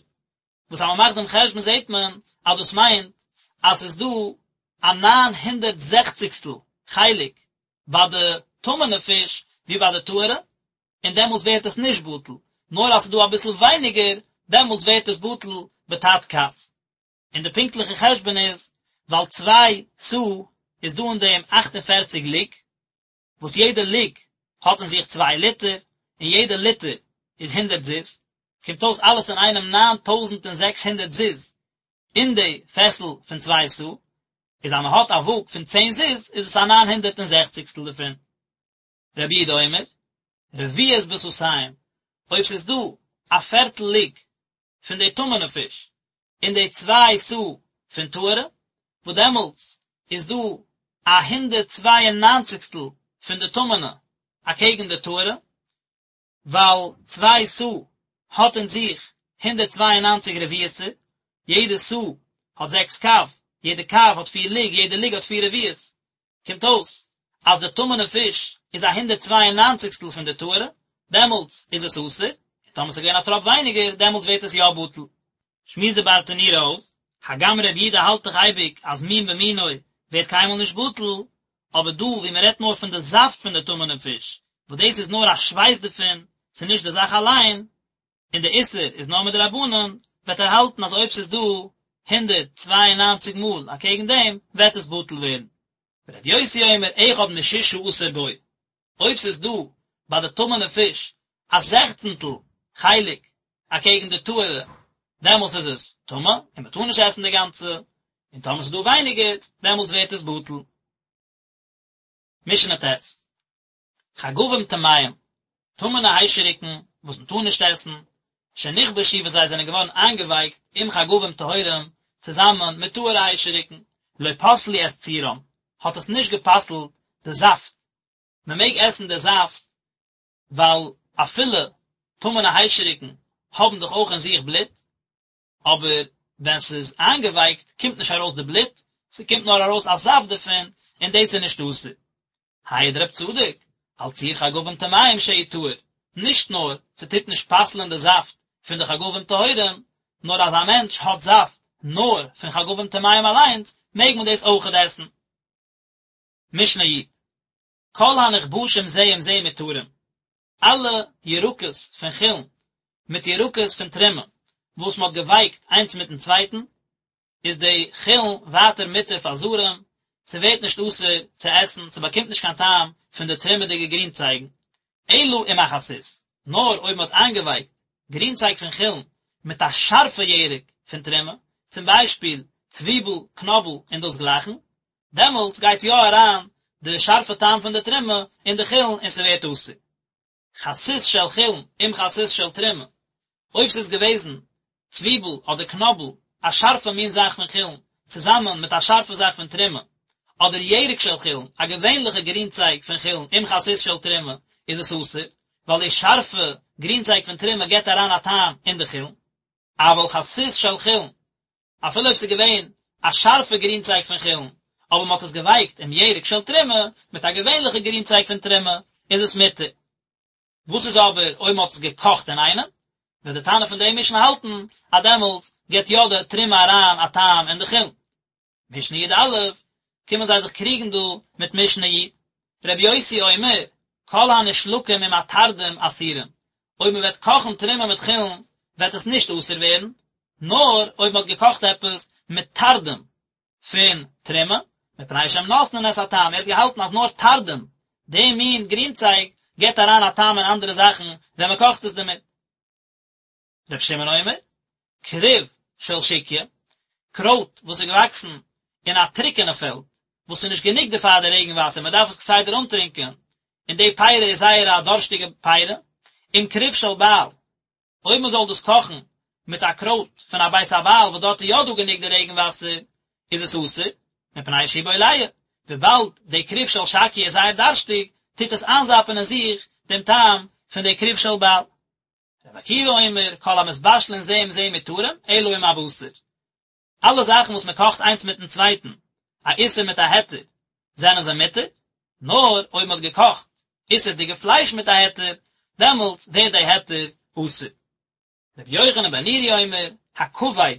וואס אז מ'מאכט דעם חשבון זעט מען אז דאס מיינט אז ס'איז דא א ניין הונדערט זעכציגסטל חלק ביי די טמא'נע פיש ווי ביי די טהור'ע, און דעמאלטס ווערט עס נישט בטל, נאר אז ס'איז דא אביסל ווייניגער, דעמאלטס ווערט עס בטל בתת כס. און די פונקטליכע חשבון איז, ווייל צוויי סאה איז דא אין דעם אכט און פערציג לוג, וואס יעדע לוג האט אין זיך צוויי ליטער, און יעדע ליטער איז הונדערט זוז, קומט אויס אלעס אינאיינעם 9600 זוז אין די פעסל פון צוויי סאה, איז אז מען האט א וואג פון צען זוז איז עס א ניין הונדערט און זעכציגסטל דערפון. רבי יהודה אומר, רביעית בסאתים, אויב ס'איז דא א פערטל לוג פון די טמא'נע פיש אין די צוויי סאה פון טהור'ע, וואס דעמאלטס איז דא א הונדערט צוויי און ניינציגסטל פון די טמא'נע אקעגן די טהור'ע, ווייל צוויי סאה האט אין זיך 192 רביעית'ער, יעדע סאה האט זעקס קב, יעדע קב האט פיר לוג, יעדע לוג האט פיר רביעית, קומט אויס אז די טמא'נע פיש איז א הונדערט צוויי און ניינציגסטל פון די טהור'ע, דעמאלטס איז עס אסור, און טאמער ס'איז געווען א טראפ ווייניגער, דעמאלטס ווערט עס יא בטל. שמועסט די ברטנורא אויס, הגם רבי יהודה האלט דאך אייביג אז מין במינו ווערט קיינמאל נישט בטל, אבער דא ווי מען רעדט נאר פון די זאפט פון די טמא'נע פיש, וואס דאס איז נאר א שווייס דערפון, ס'איז נישט די זאך אליין, און די איסור איז נאר מדרבנן, וועט ער האלטן אז אויב ס'איז דא 192 מאל אקעגן דעם, וועט עס בטל ווערן. ורבי יוסי אומר אחד משישה עשר בו, אויב ס'איז דא ביי די טמא'נע פיש א זעכצנטל חלק אקעגן די טהור'ע, דעמאלטס איז עס טמא און מ'טאר נישט עסן די גאנצע, און טאמער ס'איז דא ווייניגער, דעמאלטס ווערט עס בטל. משנה ט', חגבים טמאים, טמא'נע היישעריקן וואס מ'טאר נישט עסן, שנכבשו וואס זיי זענען געווארן איינגעווייקט עם חגבים טהורים צוזאמען מיט טהור'ע היישעריקן, לא פסלו את צירם, האט עס נישט גע'פסל'ט די זאפט, מען מעג עסן די זאפט ווייל אפילו טמא'נע היישעריקן האבן דאך אויך אין זיך בלוט, אבער ווען ס'איז איינגעווייקט קומט נישט ארויס די בלוט, ס'קומט נאר ארויס א זאפט דערפון, און דאס איז נישט אסור. העיד רב צדוק, על ציר חגבים טמאים שהוא טהור, נישט נאר ס'טוט נישט פסל'ען די זאפט פון די חגבים טהורים, נאר אז א מענטש האט זאפט נאר פון חגבים טמאים אליינס, מעג מען דאס אויכעט עסן. משנה י', כל הנכבשים זה עם זה מותרים, אלע ירקות פון חולין מיט ירקות פון תרומה וואס מען האט געווייקט איינס מיטן צווייטן, איז די חולין ווייטער מותר פאר זרים, ס'ווערט נישט אסור צו עסן, ס'באקומט נישט קיין טעם פון די תרומה'דיגע גרינצייגן, אלא עם החסית, נאר אויב מען האט איינגעווייקט גרינצייג פון חולין מיט א שארפע ירק פון תרומה, צום ביישפיל צוויבל, קנאבל און דאס גלייכן, דעמאלטס גייט יא אריין די שארפע טעם פון די תרומה אין די חולין און ס'ווערט אסור. חסית של חולין עם חסית של תרומה, אויב ס'איז געוועזן צוויבל אדער קנאבל, א שארפע מין זאך פון חולין, צוזאמען מיט א שארפע זאך פון תרומה, אדער ירק של חולין, א געווענליכע גרינצייג פון חולין, עם חסית של תרומה, איז עס אסור, ווייל די שארפע גרינצייג פון תרומה גיבט אריין א טעם אין די חולין. אבל חסית של חולין, אפילו אויב ס'איז געווען א שארפע גרינצייג פון חולין, אבער מ'האט עס געווייקט עם ירק של תרומה, מיט א געווענליכע גרינצייג פון תרומה, איז עס מותר. וואס איז אבער אויב מ'האט עס געקאכט אינאיינעם? וועט די תנא פון די משנה האלטן אז דעמאלטס גיבט יא די תרומה אריין א טעם אין די חולין. משנה י"א, קומען זיי זיך קריגן דא מיט משנה י'. רבי יוסי אומר, כל הנשלקים עם התרדים אסורים, אויב מען וועט קאכן תרומה מיט חולין וועט עס נישט אסור ווערן, נאר אויב מען האט געקאכט עפעס מיט תרדים פון תרומה, מפני שהם נותנין את הטעם, ער האט געהאלטן אז נאר תרדים, די מין גרינצייג, גיבט אריין א טעם אין אנדערע זאכן ווען מען קאכט עס דערמיט. ר' שמעון אומר, כרוב של שקיא, קרויט וואס איז געוואקסן אין א טרוקענע פעלד, וואס איז נישט גענוג דערפאר די רעגן וואסער, מען דארף עס כסדר אנטרינקען, און די פירה איז זייער א דארשטיגע פירה, עם כרוב של בעל, אויב מען זאל דאס קאכן מיט א קרויט פון א בית הבעל וואס דארט איז יא דא גענוג די רעגן וואסער, איז עס אסור, מפני שהוא בולע, וויבאלד די כרוב של שקיא איז זייער דארשטיג, טוט עס איינזאפן אין זיך דעם טעם פון די כרוב של בעל. רבי עקיבא אומר, כל המתבשלין זה עם זה מותרים, אלא עם הבשר. אלע זאכן וואס מען קאכט איינס מיטן צווייטן, א איסור מיט א היתר, זענען זיי מותר, נאר אויב מען האט געקאכט איסור'דיגע פלייש מיט א היתר, דעמאלטס ווערט די היתר אסור. רבי יוחנן בן נורי אומר, הכבד,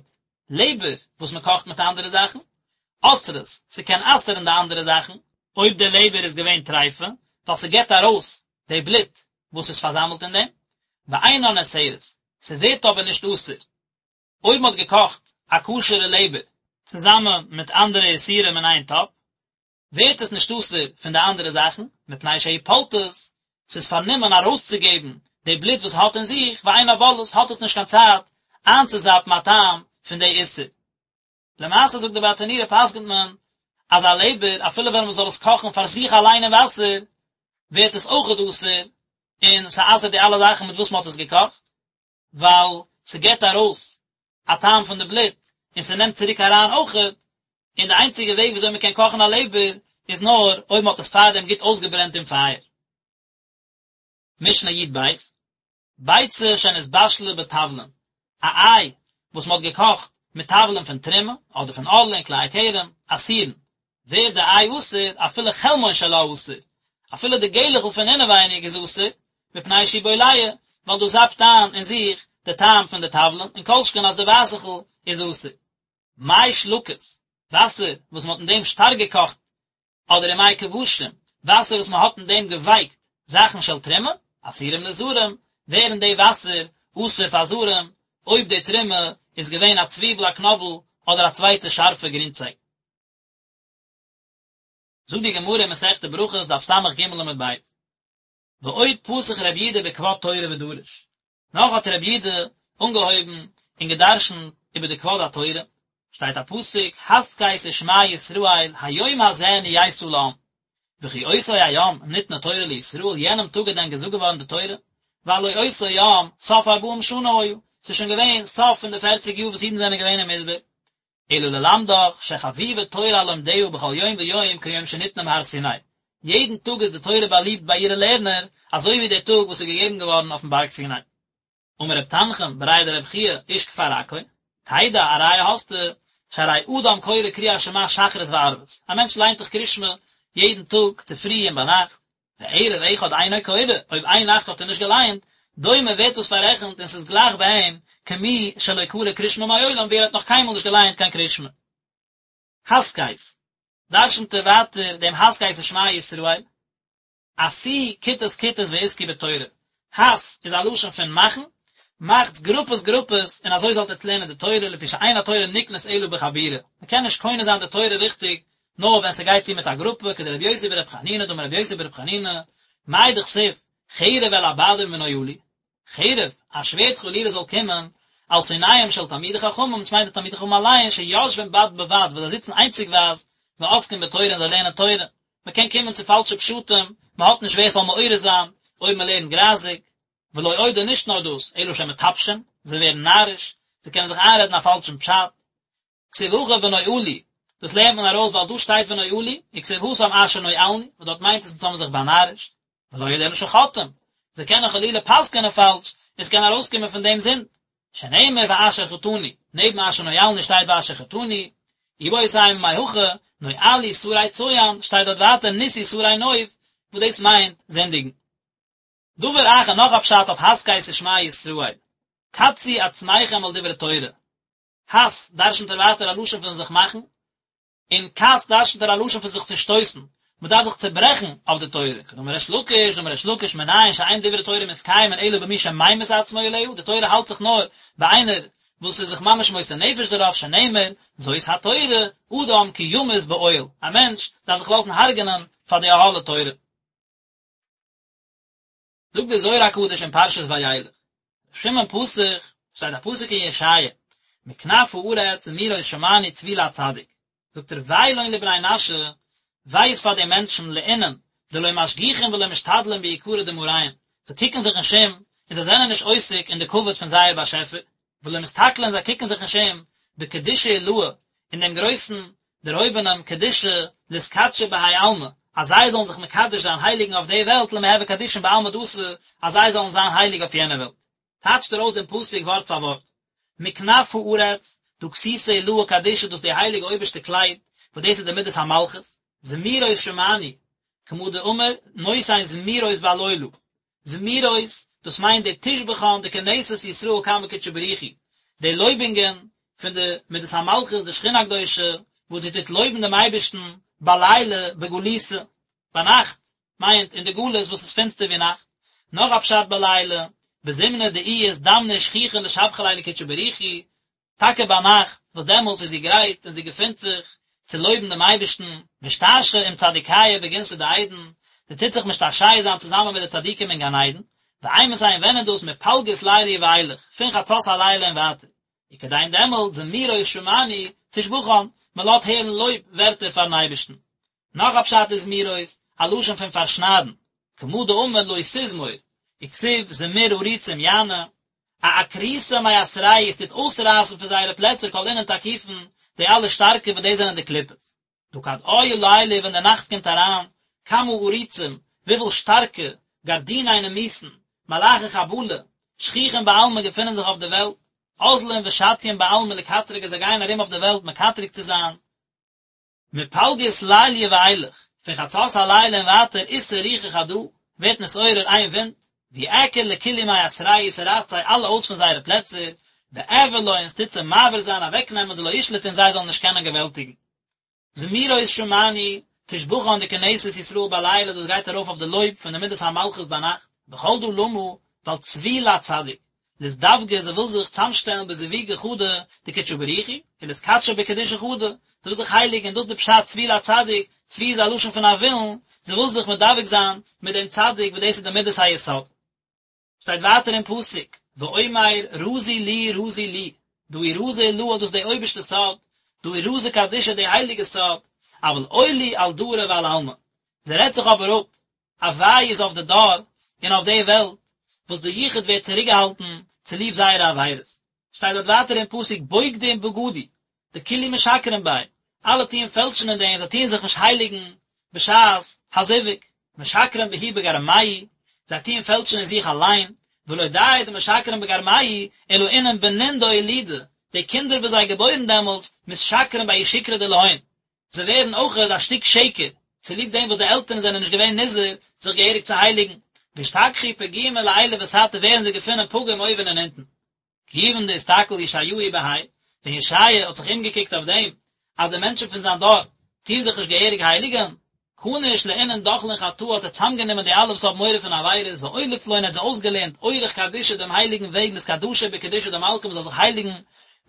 לעבער וואס מען קאכט מיט אנדערע זאכן, אוסרות, ס'קען אסר'ן די אנדערע זאכן, אויב די לעבער איז געווען טריפה, ווייל ס'געבט ארויס די בלוט וואס איז פארזאמלט אין דעם, ואינה נאסרת, ס'ווערט אבער נישט אסור, אויב מ'האט געקאכט א כשר'ע לעבער צוזאמען מיט אנדערע איסורים אין איין טאפ, ווערט עס נישט אסור פון די אנדערע זאכן, מפני שהיא פולטת. ס'איז פארנומען ארויסצוגעבן די בלוט וואס האט אין זיך, ואינה בולעת, האט עס נישט קיין צייט איינצוזאפן א טעם פון די איסור. למעשה זאגט די ברטנורא פסק'נט מען אז א לעבער אפילו ווען מ'זאל עס קאכן פאר זיך אליין אין וואסער ווערט עס אויכעט אסור און ס'אסר'ט די אלע זאכן מיט וואס מ'האט עס געקאכט ווייל ס'געבט ארויס א טעם פון די בלוט און ס'נעמט צוריק אריין אויכעט, און די איינציגע וועג וויאזוי מ'קען קאכן א לעבער איז נאר אויב מ'האט עס פארדעם גוט אויסגעברענט אין פייער. משנה י"ב, ביצה שנתבשלה בתבלין, א איי וואס מ'האט געקאכט מיט תבלין פון תרומה, אדער פון ערלה און כלאי הכרם, אסורין, ווערט די איי אסור, אפילו חלמון שלה אסור, אפילו די געלעכל פון אינעווייניג איז אסור, מפני שהוא בולע, ווייל דאס זאפט איין אין זיך די טעם פון די תבלין, און כל שכן אז די ווייסעכל איז אסור. מי שלקות, וואסער וואס מ'האט אין דעם שטארק געקאכט אדער ומי כבשים, וואסער וואס מען האט אין דעם געווייקט זאכן של תרומה, אסורים לזרים, ווערן די וואסער אסור פאר זרים, אויב די תרומה איז געווען א צוויבל א קנאבל אדער א צווייטע שארפע גרינצייג. זאגט די גמרא אין מסכת ברכות דף סג עמוד ב', ועוד פתח רבי יהודה בכבוד תורה ודרש, נאך האט רבי יהודה אנגעהויבן און גע'דרש'נט איבער די כבוד התורה, שטייט א פסוק, הסכת ושמע ישראל, היום הזה נהיית לעם, וכי אותו היום ניתנה תורה לישראל, יענעם טאג איז דען געזאגט געווארן די תורה? והלא אותו יום סוף ארבעים שנה היה, ס'איז שוין געווען סוף פון די פערציג יאר וואס אידן זענען געווען אין מדבר, אלא ללמדך שחביבה תורה על לומדיה בכל יום ויום כיום שניתנה בהר סיני, יעדן טאג איז די תורה באליבט ביי אירע לערנער אזוי ווי דער טאג וואס איז געגעבן געווארן אויפן בארג סיני. אמר רב תנחום בריה דרב חייא איש כפר עכו, תדע א ראיה האסטו, שהרי אדם קורא קריאת שמע שחרית וערבית, א מענטש ליינט דאך קריאת שמע יעדן טאג צופרי און ביינאכט, וערב אחד אינו קורא, אויב איין נאכט האט ער נישט געלייענט, דומה ווערט דאס פאררעכנט און ס'איז גלייך ביי אים כמי שלא קרא קריאת שמע מעולם ווי ער האט נאך קיינמאל נישט געלייענט קיין קריאת שמע. הסכת, דרשנ'ט ער ווייטער דעם הסכת ושמע ישראל, עשו כיתות כיתות ועסקו בתורה, הס איז א לשון פון מאכן, מאכטס גרופעס גרופעס און אזוי זאלט עטס לערנען די תורה לפי שאין התורה נקנית אלא בחבורה, מ'קען נישט קונה זיין די תורה ריכטיג נאר ווען ס'גייט צו מיט א גרופע, כדרבי יוסי ברבי חנינא דאמר רבי יוסי ברבי חנינא, מאי דכתיב, חרב אל הבדים ונואלו, חרב, א שווערד חלילה זאל קומען, על שונאיהם של תלמידי חכמים, דאס מיינט די תלמידי חכמים אליין, שיושבים בד בבד, וואס זיי זיצן איינציגווייז, ועוסקים בתורה און זיי לערנען תורה. מען קען קומען צו פאלשע פשטים, מען האט נישט ווער ס'זאל מעורר זיין, אויב מען לערנט גרייזיג. ולא עוד און נישט נאר דאס, אלא שמטפשים, זיי ווערן נאריש, זיי קענען זיך איינרעדן א פאלשן פשט. כתיב הכא ונואלו, דאס לערנט מען ארויס ווייל דא שטייט ונואלו, וכתיב התם אשר נואלנו, וואס דארט מיינט עס אונז האבן זיך באנארישט, ולא עוד אלא שחוטאים, זיי קענען חלילה פסק'ענען פאלש, און ס'קען ארויסקומען פון דעם זינד, שנאמר ואשר חטאנו, נעבן אשר נואלנו שטייט ואשר חטאנו, איבעית אימא מהכא, נואלו שרי צוען, שטייט דארט ווייטער נישאו שרי נוף, וואס דאס מיינט זינדיגן. דבר אחר נאך א פשט אויף הסכת ושמע ישראל, קצו עצמכם על דברי תורה, הס, דרשנ'ט ער ווייטער א לשון פון זיך מאכן, און קץ דרשנ'ט ער א לשון פון זיך צושטויסן, מען דארף זיך צעברעכן אויף די תורה, כדאמר ריש לקיש, דאמר ריש לקיש מנין שאין דברי תורה מתקיימין אלא במי שממית עצמו עליה, די תורה האלט זיך נאר ביי איינער וואס איז זיך ממש מוסר נפש דערויף, שנאמר, זאת התורה, אדם כי ימות באוהל, א מענטש דארף זיך לאזן הרג'נען פאר די אהלי תורה. זאגט דער זוהר הקדוש אין פרשת וילך, ר' שמעון פתח, שטייט א פסוק אין ישעיה, מכנף הארץ זמירות שמענו צבי לצדיק, זאגט ער וויי לון לבני נשא, וויי איז פאר די מענטשן לאינון, דלא משגיחין ולא משתדלין ביקרא דמאריהון, זיי קוקן זיך נישט אום, און זיי זענען נישט עוסק אין די כבוד פון זייער באשעפער, ולא מסתכלין זיי קוקן זיך נישט אום, בקדושה עילאה, אין דעם גרויסן דערהויבענעם קדושה לאתקדשא בהאי עלמא, אז זיי זאלן זיך מקדש זיין הייליגן אויף די וועלט למהוי קדישין בעלמא דאתי, אז זיי זאלן זיין הייליג אויף יענע וועלט. טייטשט ער אויס דעם פסוק ווארט פאר ווארט, מכנף הארץ, דא כסותא עילאה קדישא דאס איז די הייליגע אויבערשטע קלייד, וואס דאס איז די מידת המלכות, זמירות שמענו, כמה דאמר, נותן זמירות בליליא, זמירות, דאס מיינט די תושבחן דכנסת ישראל קמי קודשא בריך הוא, די לויבונגען פון די מדת המלכות די שכינה הקדושה וואס זי טוט לויבן דעם אייבערשטן בליליא בגלותא, ביינאכט מיינט אין די גלות וואס איז פינסטער ווי נאכט, נאך א פשט בליליא, בזמנא דאיהי אזדמנא ושכיחא לשבחא ליה לקודשא בריך הוא, טאקע ביינאכט, וואס דעמאלטס איז זי גרייט און זי געפינט זיך צו לויבן דעם אייבערשטן, משתעשע עם צדיקיא בגנתא דעדן, זי טוט זיך משתעשע זיין צוזאמען מיט די צדיקים אין גן עדן, ואימתי און ווען איז דאס מפלגות ליליא ואילך, פון חצות הלילה און ווייטער, וכדין דעמאלט זמירות שמענו תשבחן, מען לאזט הערן לויב ווערטער פארן אייבערשטן. נאך א פשט איז זמירות, א לשון פון פארשניידן, כמה דאמר לא תזמור, וכתיב זמיר עריצים יענה, אעקרותא מאתרייהו עס טוט אויסרייסן פון זייערע פלעצער כל אינון תקיפין, די אלע שטארקע וואס דאס זענען די קליפות. דהא כד בעי ליליא ווען די נאכט קומט אריין, כמה עריצים, וויפיל שטארקע, גרדיני נימוסין, מלאכי חבלה, שכיחין בעלמא געפינען זיך אויף די וועלט, אזלין ושטיין בעלמא לקטרגא זיי גייען ארום אויף די וועלט מקטרג צו זיין, מפלגות ליליא ואילך, פון חצות הלילה און ווייטער אתער רוחא חדא, ווערט נתעורר איין ווינט, ואיעקר לכולהו מאתרייהו ס'רייסט זיי אלע אויס פון זייערע פלעצער, ואעביר לון און ס'טוט זיי מעביר זיין אוועקנעמען דלא ישלטון זיי זאלן נישט קענען געוועלטיגן. זמירות שמענו, תשבחן דכנסת ישראל בלילה דאס גייט ארויף אויף די לויב פון די מידת המלכות ביינאכט, וכל דא למה, ווייל צבי לצדיק, לאזדווגא זי וויל זיך צאמשטעלן בזיווגא חדא דקודשא בריך הוא, ולאתקדשא בקדושה חדא, זי וויל זיך הייליגן, דאס איז די פשט צבי לצדיק, צבי איז א לשון פון א ווילן, זי וויל זיך מדבק זיין מיט דעם צדיק וואס דאס איז די מידת היסוד. שטייט ווייטער אין פסוק, ואומר רזי לי רזי לי, דא הוא רזא עילאה דאס איז די אויבערשטע סוד, דא הוא רזא קדישא די הייליגע סוד, אבל אוי לי על דרא ועל עלמא, זי רעדט זיך אבער אפ, א וויי איז אויף די דור און אויף די וועלט, וואס די יחוד ווערט צוריקגעהאלטן צוליב זייערע עבירות. שטייט דארט ווייטער אין פסוק בוגדים בגדו, דכולהו משקרין ביה, אלע טוען פעלשן אין דעם, זיי טוען זיך נישט הייליגן בשעת הזיווג, משקרין בהו בגרמייהו, זיי טוען פעלשן אין זיך אליין, ולא די דמשקרין בגרמייהו, אלא אינון בנין דאולידו, די קינדער וואס זיי געבוירן דעמאלטס, מתשקרין בההוא שקרא דלהון, זיי ווערן אויכעט א שטיק שקר, צוליב דעם וואס די עלטערן זענען נישט געווען נזהר זיך געהעריג צו הייליגן, ואשתכחו פגימין לעילא ותתא ווערן זיי געפונען פגום אויבן און אונטן. כיוון דאסתכל ישעיהו בהאי, ווען ישעיה האט זיך אומגעקוקט אויף דעם אז די מענטשן פון זיין דור טוען זיך נישט געהעריג הייליגן, כניש לאינון דחלין חטאה האט ער צאמגענומען די אלע וואס האבן מורא פון עבירות ואוליף לון ער האט זיי אויסגעלערנט אורח קדישא דעם הייליגן וועג לאתקדשא בקדושה דמלכא מען זאל זיך הייליגן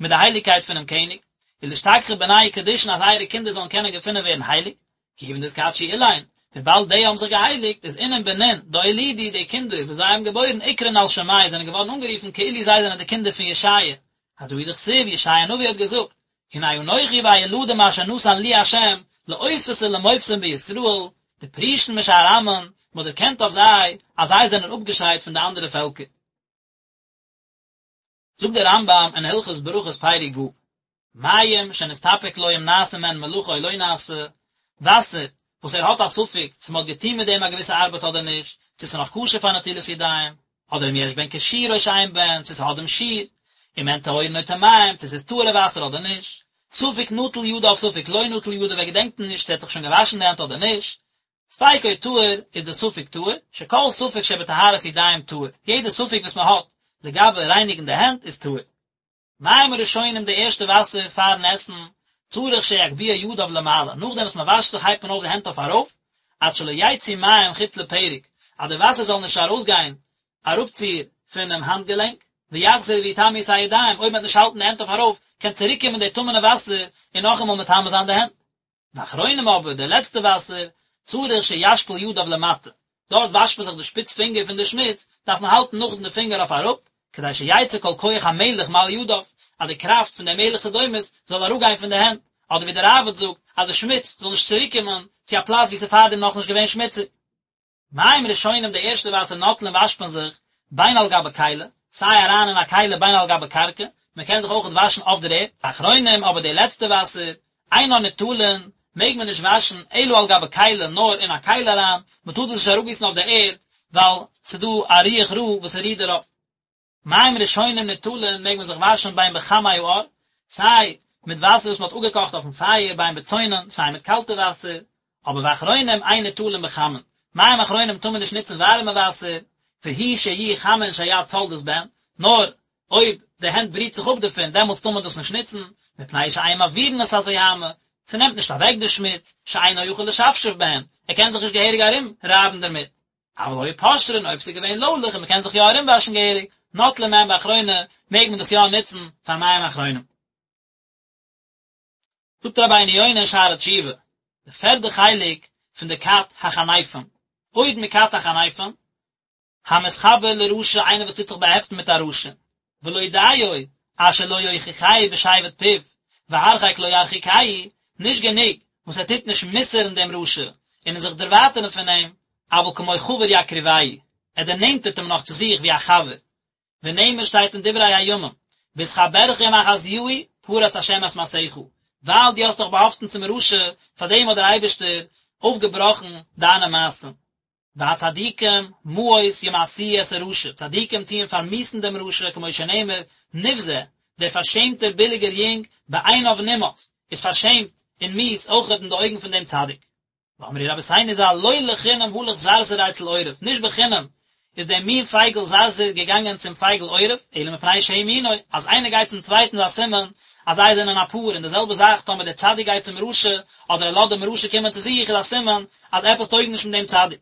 מיט די הייליגקייט פונעם קעניג, ולאשתכחא בנייהו קדישין אז זייערע קינדער זאלן קענען געפונען ווערן הייליג, כיוון דאתקדשו אילין, וויבאלד די האבן זיך געהייליגט, איז אינון בנין דאולידו די קינדער וואס זיי האבן געבוירן אקרון על שמייהו זענען געווארן אנגערופן כאילו זיי זענען די קינדער פון ישעיה, הדא הוא דכתיב ישעיה הנביא האט געזאגט, הנה אנכי והילדים אשר נתן לי ה' לאותות ולמופתים בישראל, דפרישין משאר עמין, מען האט דערקענט אויף זיי אז זיי זענען אפגעשיידט פון די אנדערע פעלקער. זאגט דער רמב"ם אין הלכות ברכות פרק ו', מים שנסתפק לו אם נעשה מהן מלאכה או לא נעשה, וואסער וואס ער האט א ספק צו מען האט געטון מיט דעם א געוויסע ארבעט אדער נישט, צו ס'איז נאך כשר פאר נטילת ידיים, אדער אם יש בהן כשיעור או שאין בהן, צו ס'האט דעם שיעור, אם הן טהורין או טמאים, צו ס'איז טהור'ע וואסער אדער נישט, ספק נטל ידיו ספק לא נטל ידיו ער געדענקט נישט צו ער האט זיך שוין געוואשן די הענט אדער נישט, ספיקו טהור איז די ספק טהור, שכל ספק שבטהרת ידיים טהור, יעדע ספק וואס מען האט לגבי רייניגן די הענט איז טהור. מים הראשונים די ערשטע וואסער פארן עסן, צריך שיגביה ידיו למעלה, נאכדעם וואס מען וואשט זיך הייבט מען אויף די הענט אויף ארויף, עד שלא יצאו מים חוץ לפרק, אז די וואסער זאל נישט ארויסגיין אראפציר פונעם האנט געלענק, ויחזרו ויטמאו את הידיים, אויב מען וועט נישט האלטן די הענט אויף ארויף, קען צוריקקומען די טמא'נע וואסער און נאכאמאל מטמא זיין די הענט. ואחרונים אבער די לעצטע וואסער, צריך שישפיל ידיו למטה, דארט וואשט מען זיך די שפיץ פינגער פון די שמוץ, דארף מען האלטן נאכדעם די פינגער אויף אראפ, כדי שיצא כל כח המלח מעל ידיו, אז די קראפט פון די מלח סדומית זאל אראפגיין פון די הענט, אדער ווי דער ראב"ד זאגט, אז די שמוץ זאל נישט צוריקקומען צו א פלאץ וואו ס'איז פארדעם נאכנישט געווען שמוציג. מים ראשונים די ערשטע וואסער נוטלין וואשט מען זיך בין על גבי כלי, סיי אריין אין א כלי בין על גבי קרקע, מען קען זיך אויכעט וואשן אויף דער ערד, ואחרונים אבער די לעצטע וואסער, אינן ניטלין, מעג מען נישט וואשן אלא על גבי כלי נאר אין א כלי אריין, מען טאר דאס נישט אראפגיסן אויף דער ערד ווייל ס'דא א רוח רעה וואס ס'רוהט דערויף. מים ראשונים ניטלין מעג מען זיך וואשן בין בחמי האור, סיי מיט וואסער וואס מען האט אפגעקאכט אויפן פייער בין בצונן, סיי מיט קאלטע וואסער, אבער ואחרונים אין ניטלין בחמין, מים אחרונים טאר מען נישט נוצן ווארימע וואסער, והוא שיהיו חמין שהיד סולדת בהן, נאר אויב די הענט בריט זיך אפ דערפון דעמאלטס טאר מען דאס נישט נוצן, מפני שאין מעבירין את הזוהמא, ס'נעמט נישט אוועק די שמוץ, שאינו יכול לשפשף בהן, ער קען זיך נישט געהעריג ארום רייבן דערמיט. אבל היו פושרין אויב ס'איז געווען לוילעך און מ'קען זיך יא ארומוואשן געהעריג, נוטלין מהן באחרונה, מעג מען דאס יא נוצן פאר מים אחרונים. זאגט רבינו יונה אין שערי תשובה, די פערדע חלק פון די כת החניפים. עוד מכת החניפים, המתחבר לרשע איינער וואס טוט זיך באהעפטן מיט א רשע, ולא דיו אשר לא יוכיחהו בשבט פיו, והרחק לא ירחיקהו, נישט גענוג וואס ער טוט נישט מוסר'ן דעם רשע און זיך דערווייטערן פון אים, אבל כמו חבר יקרבהו, ער דערנענטערט אים נאך צו זיך ווי א חבר. ונאמר שטייט אין דברי הימים, בהתחברך עם אחזיהו פרץ השם את מעשיך, ווייל דו האסט דיך באהאפטן צום רשע, פאר דעם האט דער אייבערשטער אויפגעבראכן דיינע מעשים. והצדיקים מאוס ימאסו את הרשע, צדיקים טוען פארמיאוסן דעם רשע, כמו שנאמר, נבזה, דער פארשעמטער ביליגער יונג, בעיניו נמאס, איז פארשעמט און מיאוס אויכעט אין די אויגן פון דעם צדיק. ואמרו רבותינו ז"ל לא לחינם הלך זרזיר אצל עורב, נישט בחינם איז דער מין פייגל זרזיר געגאנגען צום פייגל עורב, אלא מפני שהוא מינו, אז איינער גייט צום צווייטן איז א סימן אז זיי זענען א פאר, און די זעלבע זאך טאמער דער צדיק גייט צום רשע, אדער ער לאזט דעם רשע קומען צו זיך איז א סימן אז עפעס טויג נישט מיט דעם צדיק.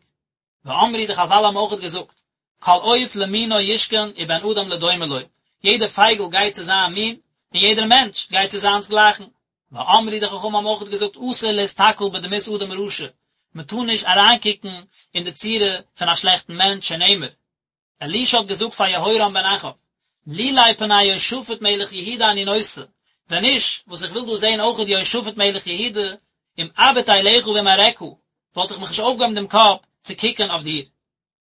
ואמרו די חזל האבן אויכעט געזאגט, כל עוף למינו ישכון ובן אדם לדומה לו, יעדער פייגל גייט צו זיין מין, און יעדער מענטש גייט צו זיינס גלייכן. ואמרו די חכמים האבן אויכעט געזאגט אסור להסתכל בדמות אדם רשע, מען טאר נישט אריינקוקן אין די צורה פון א שלעכטן מענטש שנאמר, אלישע האט געזאגט פאר יהורם בן אחאב, לולי פני יהושפט מלך יהודה אני נושא, ווען נישט וואס איך וויל דא זען אויכעט יהושפט מלך יהודה, אם אביט אליך ואם אראך, וואלט איך מיך נישט אויפגעהויבן דעם קאפ צו קוקן אויף דיר.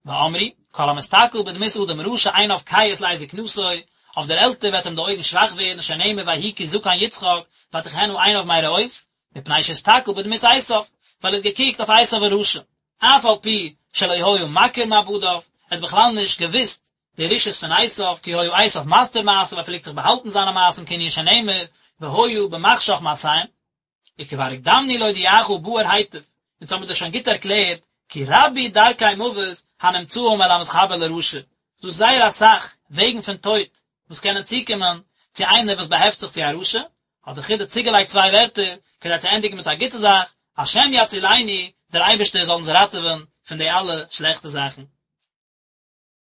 ואמרו, כל המסתכל בדמות אדם רשע עיניו כהות לעת זקנתו, אויף דער עלטער וועט אים די אויגן שוואך ווערן, שנאמר ויהי כי זקן יצחק, ותכהין עיניו מראות, מפני שהסתכל בדמות עשיו, ווייל ער האט געקוקט אויף עשיו הרשע, אף על פי שלא היה מכיר מעבדיו, ער האט בכלל נישט געוואוסט די רשעות פון עשיו, כי היה עשיו מסתיר מעשיו, ער פלעגט זיך באהאלטן זיינע מעשים כענין שנאמר, והיה במחשך מעשיהם. וכבר הקדמנו להודיעך באר היטב, אונז האבן מיר דאס שוין גוט ערקלערט, כי רבו דרכי מוות הנמצאים אל המתחבר לרשע, ס'דא זייער אסאך וועגן פון טויט וואס קענען צוקומען צו איינער וואס באהעפט זיך צו א רשע, האט דער חידא צוגעלייגט צוויי ווערטער כדי צו ענדיגן מיט א גוטע זאך, השם יצילנו, דער אייבערשטער זאל אונז ראטעווען פון די אלע שלעכטע זאכן.